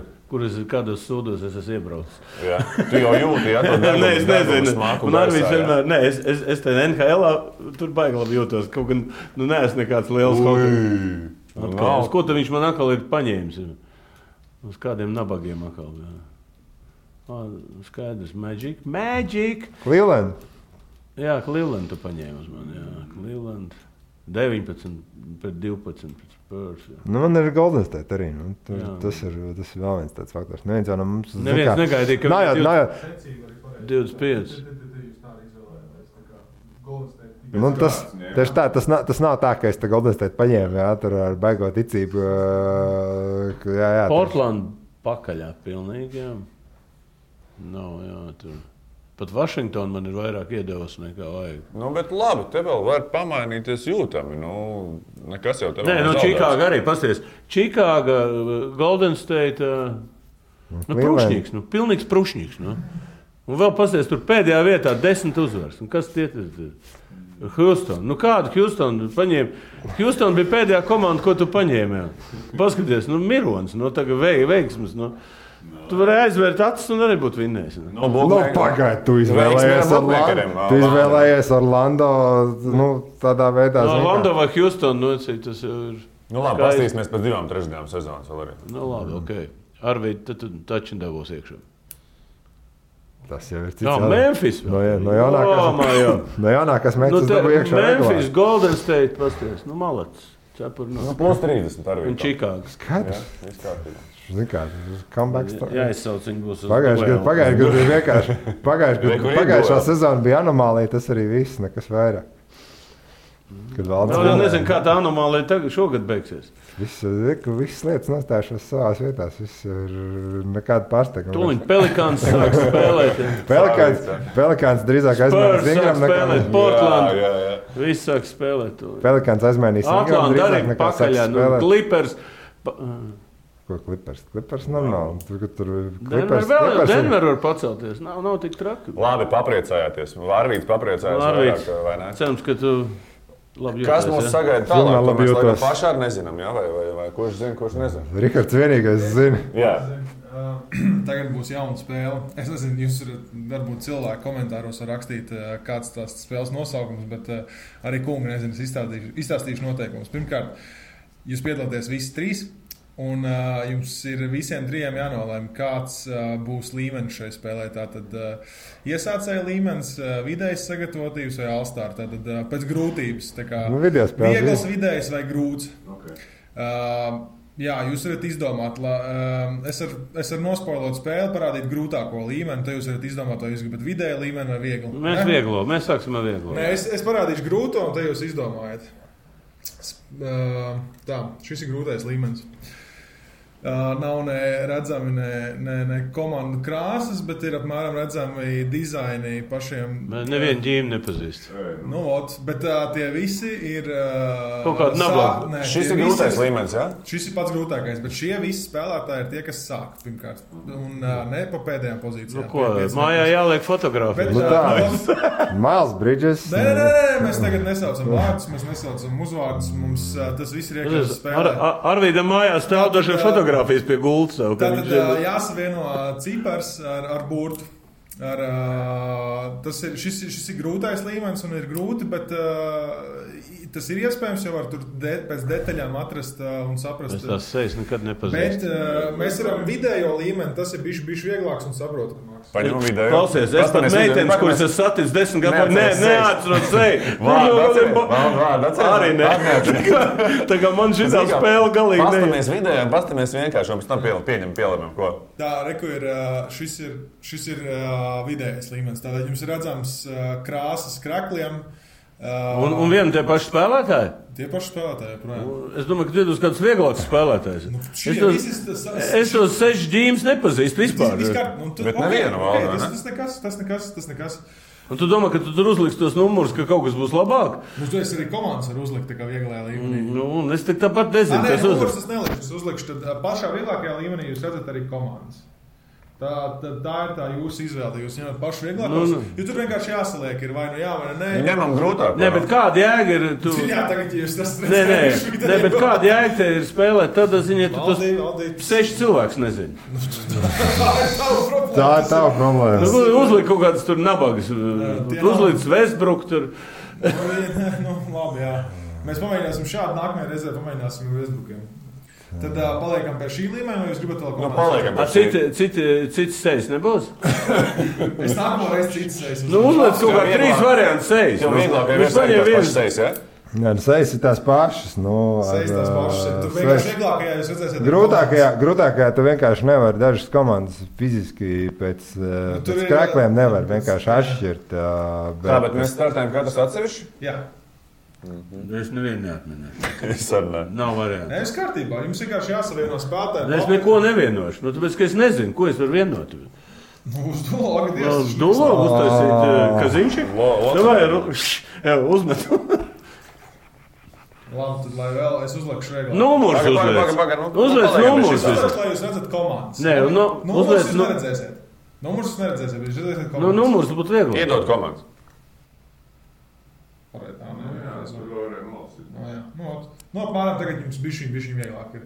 kādos sūdos es esmu iebraucis. Jā, tu jau jūti, ja? Nē, es nezinu. Un Arvīds vienmēr, es te NHL-ā tur baigi labi jūtos. Kaut gan, nu, neesmu nekāds liels uz ko tad viņš man atkal ir paņēmis? Uz kādiem nabagiem atkal. Skaidrs, Magic! Cleveland! Jā, Cleveland tu paņēmi uz mani, jā. Cleveland 19 pret 12 pret Spurs. Jā. Nu, man ir Golden State arī. Nu, tas ir vēl viens tāds faktors. Neviens jau no mums... Neviens negaidīja, ka... Nājāt. 25. Nu, tas nav tā, ka es te Golden State paņēmu, jā, tur ar baigo ticību. Jā, Portland pakaļā pilnīgi, jā. Nav, jā, tur... Pat Vašingtona man ir vairāk iedevusi nekā vajag. Nu, bet labi, te vēl var pamainīties jūtami. Nu, nekas jau te vēl nav zaudēts. Čikāga arī, pasties. Čikāga, Golden State, prušņīgs, pilnīgs prušņīgs. Un vēl pasties, tur pēdējā vietā 10 uzvaras. Un kas tie ir? Houston. Nu, kādu Houston paņēma? Houston bija pēdējā komanda, ko tu paņēmi. Paskaties, Mirons, tagad veiksmes. Tu vari aizvērt acis un arī būt vinnējis. Pagaid, tu izvēlējies Orlando tādā veidā. Orlando vai Houston, tas ir... Nu labi, pastīsimies pēc 2-3 sezonas vēl arī. Nu labi, okei. Arvīd, tad tu taču devos iekšā. Tas jau ir cits. Jā, Memphis. No jaunākās Memphis dabu iekšā. Memphis, Golden State, pasties. Malats. Plus 30 Arvīd. Un Čikāga. Skaidrs. Zini kā, comeback story. Jā, izsauc viņu būs uz Pagājušajā gadā bija vienkārši. Pagājušā sezona bija anomālija, tas arī viss, nekas vairāk. Kad valdes Vēl jau nezinu, kā tā anomālija tagad šogad beigsies. Visas lietas nostājušās savās vietās. Viss ir nekāda pārsteiguma. Tūliņ Pelikāns sāk spēlēt. Pelikāns drīzāk aizmainīs Ingram nekā Portland. Viss sāk spēlēt. Pelikāns aizmainīs Ingram drīzāk nekā sāk spēlēt. Clippers. Ko Clippers? Clippers normāli. Denver var pacelties. Nav tik traki. Labi, papriecājāties. Vārvīts papriecājās vairāk, vai ne? Cerams, ka tu labi jūties. Kas mums sagaida tālāk? To mēs laikam pašā arī nezinām, jā? Vai kurš zina, kurš nezina? Rihards vienīgais zina. Jā. Tagad būs jauna spēle. Es nezinu, jūs varbūt cilvēki komentāros var rakstīt, kāds tās spēles nosaukums, bet arī kungi nezinu, es izstāstīšu noteikumus. Pirmkārt, jūs piedalāties visi trīs. Un jums ir visiem trijiem jānolēm, kāds būs līmenis šai spēlē. Tātad iesācēja līmenis, vidējs sagatavotības vai all-star. Tātad pēc grūtības. Tā kā viegls, vidējs vai grūts. Okay. Jā, jūs varat izdomāt. Es varu nospoilot spēli, parādīt grūtāko līmeni. Tad jūs varat izdomāt, vai jūs gribat vidēju līmeni vai vieglu. Mēs sāksim ar vieglo. Nē, es parādīšu grūto, un tad jūs izdomājat. Tā, šis ir grūtais līmenis. Nav ne redzami ne komandu krāsas, bet ir apmēram redzami dizaini pašiem. Nevienu ģīmi nepazīst. Nu, bet tie visi ir... Kaut kāda nabaga. Šis ir grūtais līmenis, jā? Šis ir pats grūtākais, bet šie visi spēlētāji ir tie, kas sāk pirmkārt. Un ne pa pēdējām pozīcijām. Nu, ko? Mājā jāliek fotogrāfijas. Miles Bridges. Nē, mēs tagad nesaucam vārdus, mēs nesaucam uzvārdus. Mums tas viss ir iekļauts spēlē. Arvīdam mājā stāv dažiem fotogrāfijas pie gultas. Tātad jāsavieno cipars ar burtu. Šis ir grūtais līmenis un ir grūti, bet tas ir iespējams jau var tur pēc detaļām atrast un saprast. Es tās sejas nekad nepazīstu. Bet mēs varam vidējo līmeni, tas ir bišķi vieglāks un saprotamāks. Paņem vidējo. Klausies, es pat meitenes, kuras es saticu 10 gadiem, neatceros seju. Arī ne. Tā kā man šitā spēle galīgi ne. Pastamies vidējām, pastamies vienkārši, un pēc tam pielemam ko. Tā, reku ir, šis ir vidējais līmenis. Tātad jums ir redzams krāsas krakliem. Un vienu tie paši spēlētāji? Tie paši spēlētāji, projām. Es domāju, ka tu esi kāds vieglāks spēlētājs. Es tos 6 ģīmes nepazīstu vispār. Bet nevienu vēl, ne? Tas nekas. Un tu domā, ka tu tur uzliks tos numurus, ka kaut kas būs labāk? Nu, tu esi arī komandas var uzlikt tā kā vieglajā līmenī. Nu, es tāpat nezinu, kas numurus es nelikšu. Es uzlikšu, tad pašā vieglākajā līmenī jūs redzat arī komandas. Tā ir tā jūsu izvēle. Jūs ņemat pašu vieglākos. Jo tur vienkārši jāsaliek, ir vai nu jā, vai nē. Ņemam grūtāk. Nē, bet kāda jēga ir? Jā, tagad jūs tas redzat. Nē, bet kāda jēga te ir spēlēt? Tad, ziņā, tu tos 6 cilvēks nezini. Tā ir tava problēma. Uzliek kaut kādas tur nabagas. Uzliek Westbrook tur. Nu, labi, jā. Mēs pamēģināsim šādu nākamajā reizē, pamēģināsim Westbrookiem. Tad paliekam pie šī līmeņa, vai jūs gribat vēl kaut kādā? Cits sejas nebūs? Es nākamo reizi cits sejas. Nu, uzliec kaut kā 3 variantu sejas. Jo vieglāk ir tās sejas, jā? Jā, sejas ir tās pašas. Sejas tās pašas. Tur vienkārši vieglākajā jūs redzēsiet. Grūtākajā tu vienkārši nevar dažas komandas fiziski pēc krākliem nevar vienkārši atšķirt. Tā, bet mēs startējam katrs atsevišķi? Jā. Es nevienu neatminēšu. Es arī ne. Nav variantu. Nē, es kārtībā. Jums vienkārši jāsavieno spēlētāji. Es neko nevienošu. Nu, tāpēc, ka es nezinu, ko es varu vienot. Uz dulo, uz dulo uztaisīt Kaziņšik? Vai uzmet. Labi, tad lai vēl es uzlikšu regulāri. Numurs uzliec. Uzliec numurs. Lai jūs redzat komandas. Nē, numurs jūs neredzēsiet. Numurs jūs neredzēsiet, bet jūs redzēsiet komandas. Nu, numurs būtu viegli. Iedod komandas. Nu, apmēram tagad jums bišķiņ vieglāk ir.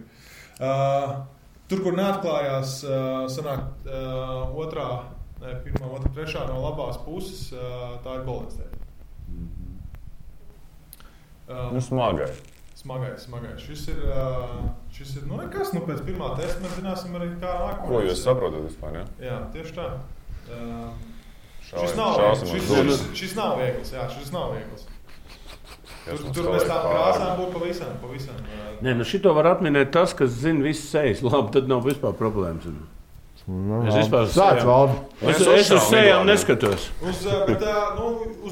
Tur, kur neatklājās, sanāk pirmā, otrā, trešā no labās puses, tā ir Golden State. Smagais. Šis ir, nekas, pēc pirmā testa mēs zināsim arī kā nākamā. Ko jūs saprotat vispār, ja? Jā, tieši tā. Šis nav viegls. Tur mēs tām krāsām būtu pavisam. Nē, šito var atminēt tas, kas zina visas sejas. Labi, tad nav vispār problēmas. Es vispār sāc valdi. Es uz sejām neskatos. Uz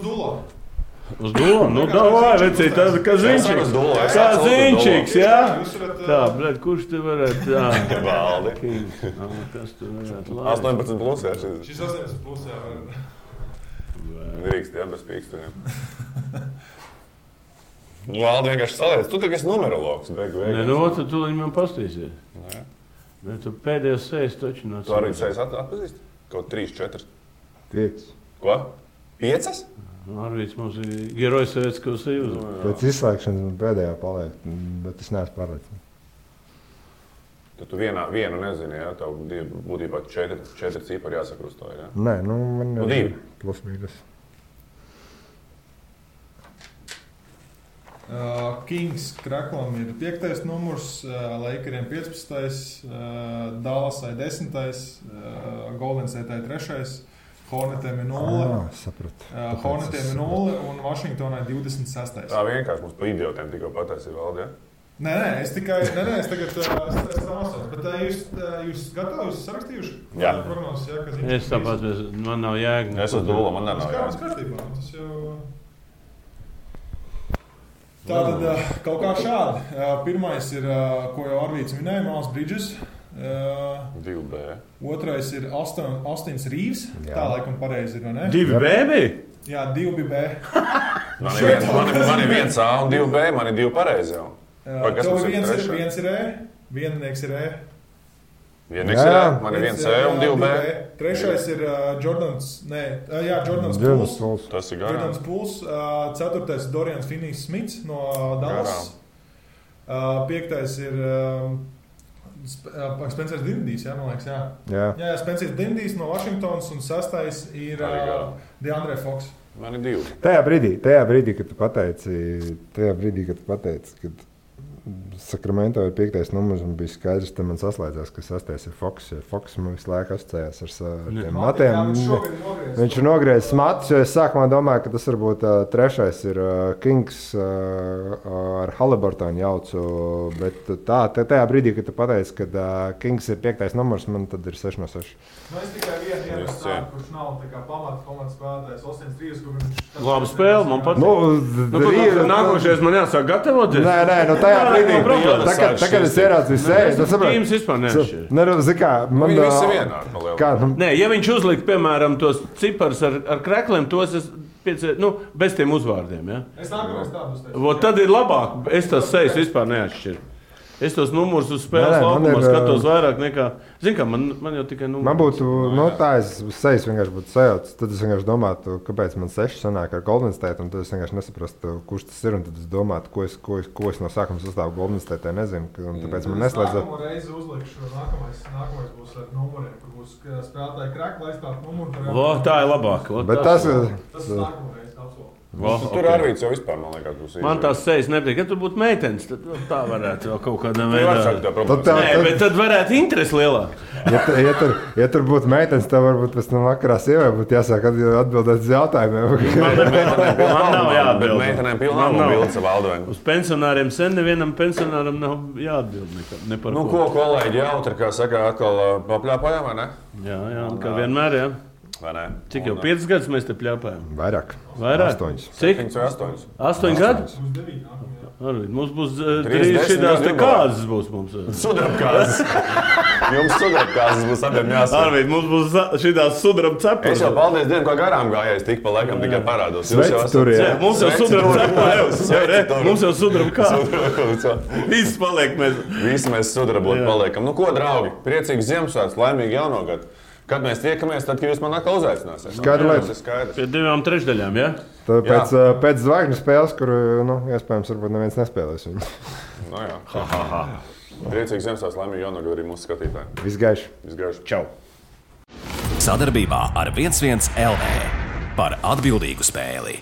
dulo. Uz domu, nu, davai, vecīt, tāda kaziņčiks. Kaziņčiks, jā? Tā, bļet, kurš te varētu, jā? Valdi. Kas tu varētu labi? 18 plus, jā, Šis 18 plus, jā. Drīkst, jā, bez pīkstuņiem. Valdi vienkārši saliec. Tu tagad esi numerologs, beigu. Nē, nu, tad tu man pastīsies. Nē, tu pēdējos sejas taču nāc. Tu arī sejas atpazīst? Kaut 3, 4. 5. Ko? 5? Arvīts mums ir Gerojs Sovietskavas Sejūza. Pēc izslēgšanas man pēdējā paliek, bet es neesmu pārliecināts. Tad tu vienu nezini, jā? Tev būtībā 4 cipari jāsakrustā, jā? Nē, nu man Nu, 2. Plus mīnus. Kings Kraklam ir 5. numurs, Lakeriem 15. Dallasai 10. Golden State'ai 3. Hornetiem ir 0. Sapratu. Hornetiem ir 0 un Vašingtonai 26. Tā vienkārši mums pa idiotiem tikko pataisi valdi, jā? Nē, es tagad esmu bet jūs gatavi, jūs sarakstījuši? Jā. Prognozes, jā, ka Es tāpēc, man nav jēga. Es uz dūlu, man nav Kāds jā. kārtībā, tas jau... Tātad kaut kā šādi. Pirmais ir, ko jau Arvīts minēja, Miles Bridges. 2B. Otrais ir Austins Rīvs. Tā laikam pareizi ir, vai ne? 2B bija? Jā, 2B. Man ir 1A un 2B, man ir 2 pareizi jau. Vai kas mums ir trešā? Viens ir E, viennieks ir E. Vienīgs ir E, man ir 1C un 2B. Trešais ir Jordans Jordans Pools. Pools. Tas ir garām. Jordans Pools. Ceturtais ir Dorians Finney-Smits no Dallas. Piektais ir Spencers Dinwiddijs, jā, man liekas, jā. Jā, Spencers Dinwiddijs no Vašingtonas un sastais ir DeAndre Fox. Man ir 2. Tajā brīdī, kad tu pateici, kad Sakramento ir 5. numurs un bija skaidrs, tad man saslēdzās, ka 6. ir Foks. Foks man visu laiku asociējās ar tiem matiem. Viņš ir nogriezis matus, jo es sākumā domāju, ka tas varbūt 3. ir Kings ar Haliburtonu jaucu, bet tajā brīdī, kad tu pateici, ka Kings ir 5. numurs, man tad ir 6 no 6. Es tikai vienu tādu, kurš nav pamata komandas spēlētājs, Austins Rīvs, kur viņš... Labi spēle, man patīk. Nākošais man jāsāk gatavoties. Nē, nu tajā brīdī, tagad es ieraudzīju seju. Tas Tīms vispār neatšķir. Viņi visi vienādi palielina. Nē, ja viņš uzlikt, piemēram, tos ciparus ar krekliem, tos es bez tiem uzvārdiem, ja? Es nākamais tādus teicu. Tad ir labāk, es tas sejas vispār neatšķiru. Es tos numurus uz spēles laukumā skatos vairāk nekā... Zini kā, man jau tikai numuri. Man būtu, tā es sejas vienkārši būtu sajauts. Tad es vienkārši domātu, kāpēc man 6 sanāk ar Golden State, un tad es vienkārši nesaprastu, kurš tas ir, un tad es domātu, ko es no sākuma sastāvu Golden State, nezinu, un tāpēc man neslēdzot. Nākamo reizi uzlikšu, nākamais būs ar numuriem, kur būs spēlētāji krekli aizstāt numuru. Tā ir labāk. Bet tas ir nākamo reizi, absolūti. Tur Arvīts jau vispār, man liekas, būs īsti. Man tās sejas nepatīk. Ja tur būtu meitenes, tad tā varētu vēl kaut kādā veidā. Nē, bet tad varētu interesi lielāk. Ja tur būtu meitenes, tad varbūt pēc tam vakarā sievai būtu jāsāk atbildēt uz jautājumiem. Man nav jāatbild. Bet meitenēm pilnām mobilīca savā alduvē. Uz pensionāriem sen nevienam pensionāram nav jāatbild ne par ko. Nu, ko kolēģi jautri, kā saka, atkal papļāpājām, vai ne? Jā, kā vienmēr, jā. Vai ne? Cik jau 5 gadus mēs te pļāpājam? Vairāk? 8. Cik? 8. 8 gadi? Mums būs 3 šitās te kāzes būs mums. Sudrabkāzes. Jums sudrabkāzes būs abiem jāsaka. Arvīd, mums būs šitās sudrab cepures. Es jau paldies Dievam, kā garām gājais, tik pa laikam tikai parādos. Sveci tur, jā. Mums jau sudrab cepures. Mums jau sudrab kāzes. Viss paliek mēs. Visi mēs sudrabot paliekam. Nu ko, draugi, priecīgs Ziemassvētku, laimīgi jaunogad. Kad mēs tiekamies, tad, kad jūs man atkal uzaicināsiet. Skaidrs. Pie 2/3, jā? Pēc zvaigžņu spēles, kur, iespējams, varbūt neviens nespēlēs viņu. Nu jā. Priecīgs Ziemassvētku, laimīgi jaunogad arī mūsu skatītāji. Visgaiši. Čau. Sadarbībā ar 11 LV par atbildīgu spēli.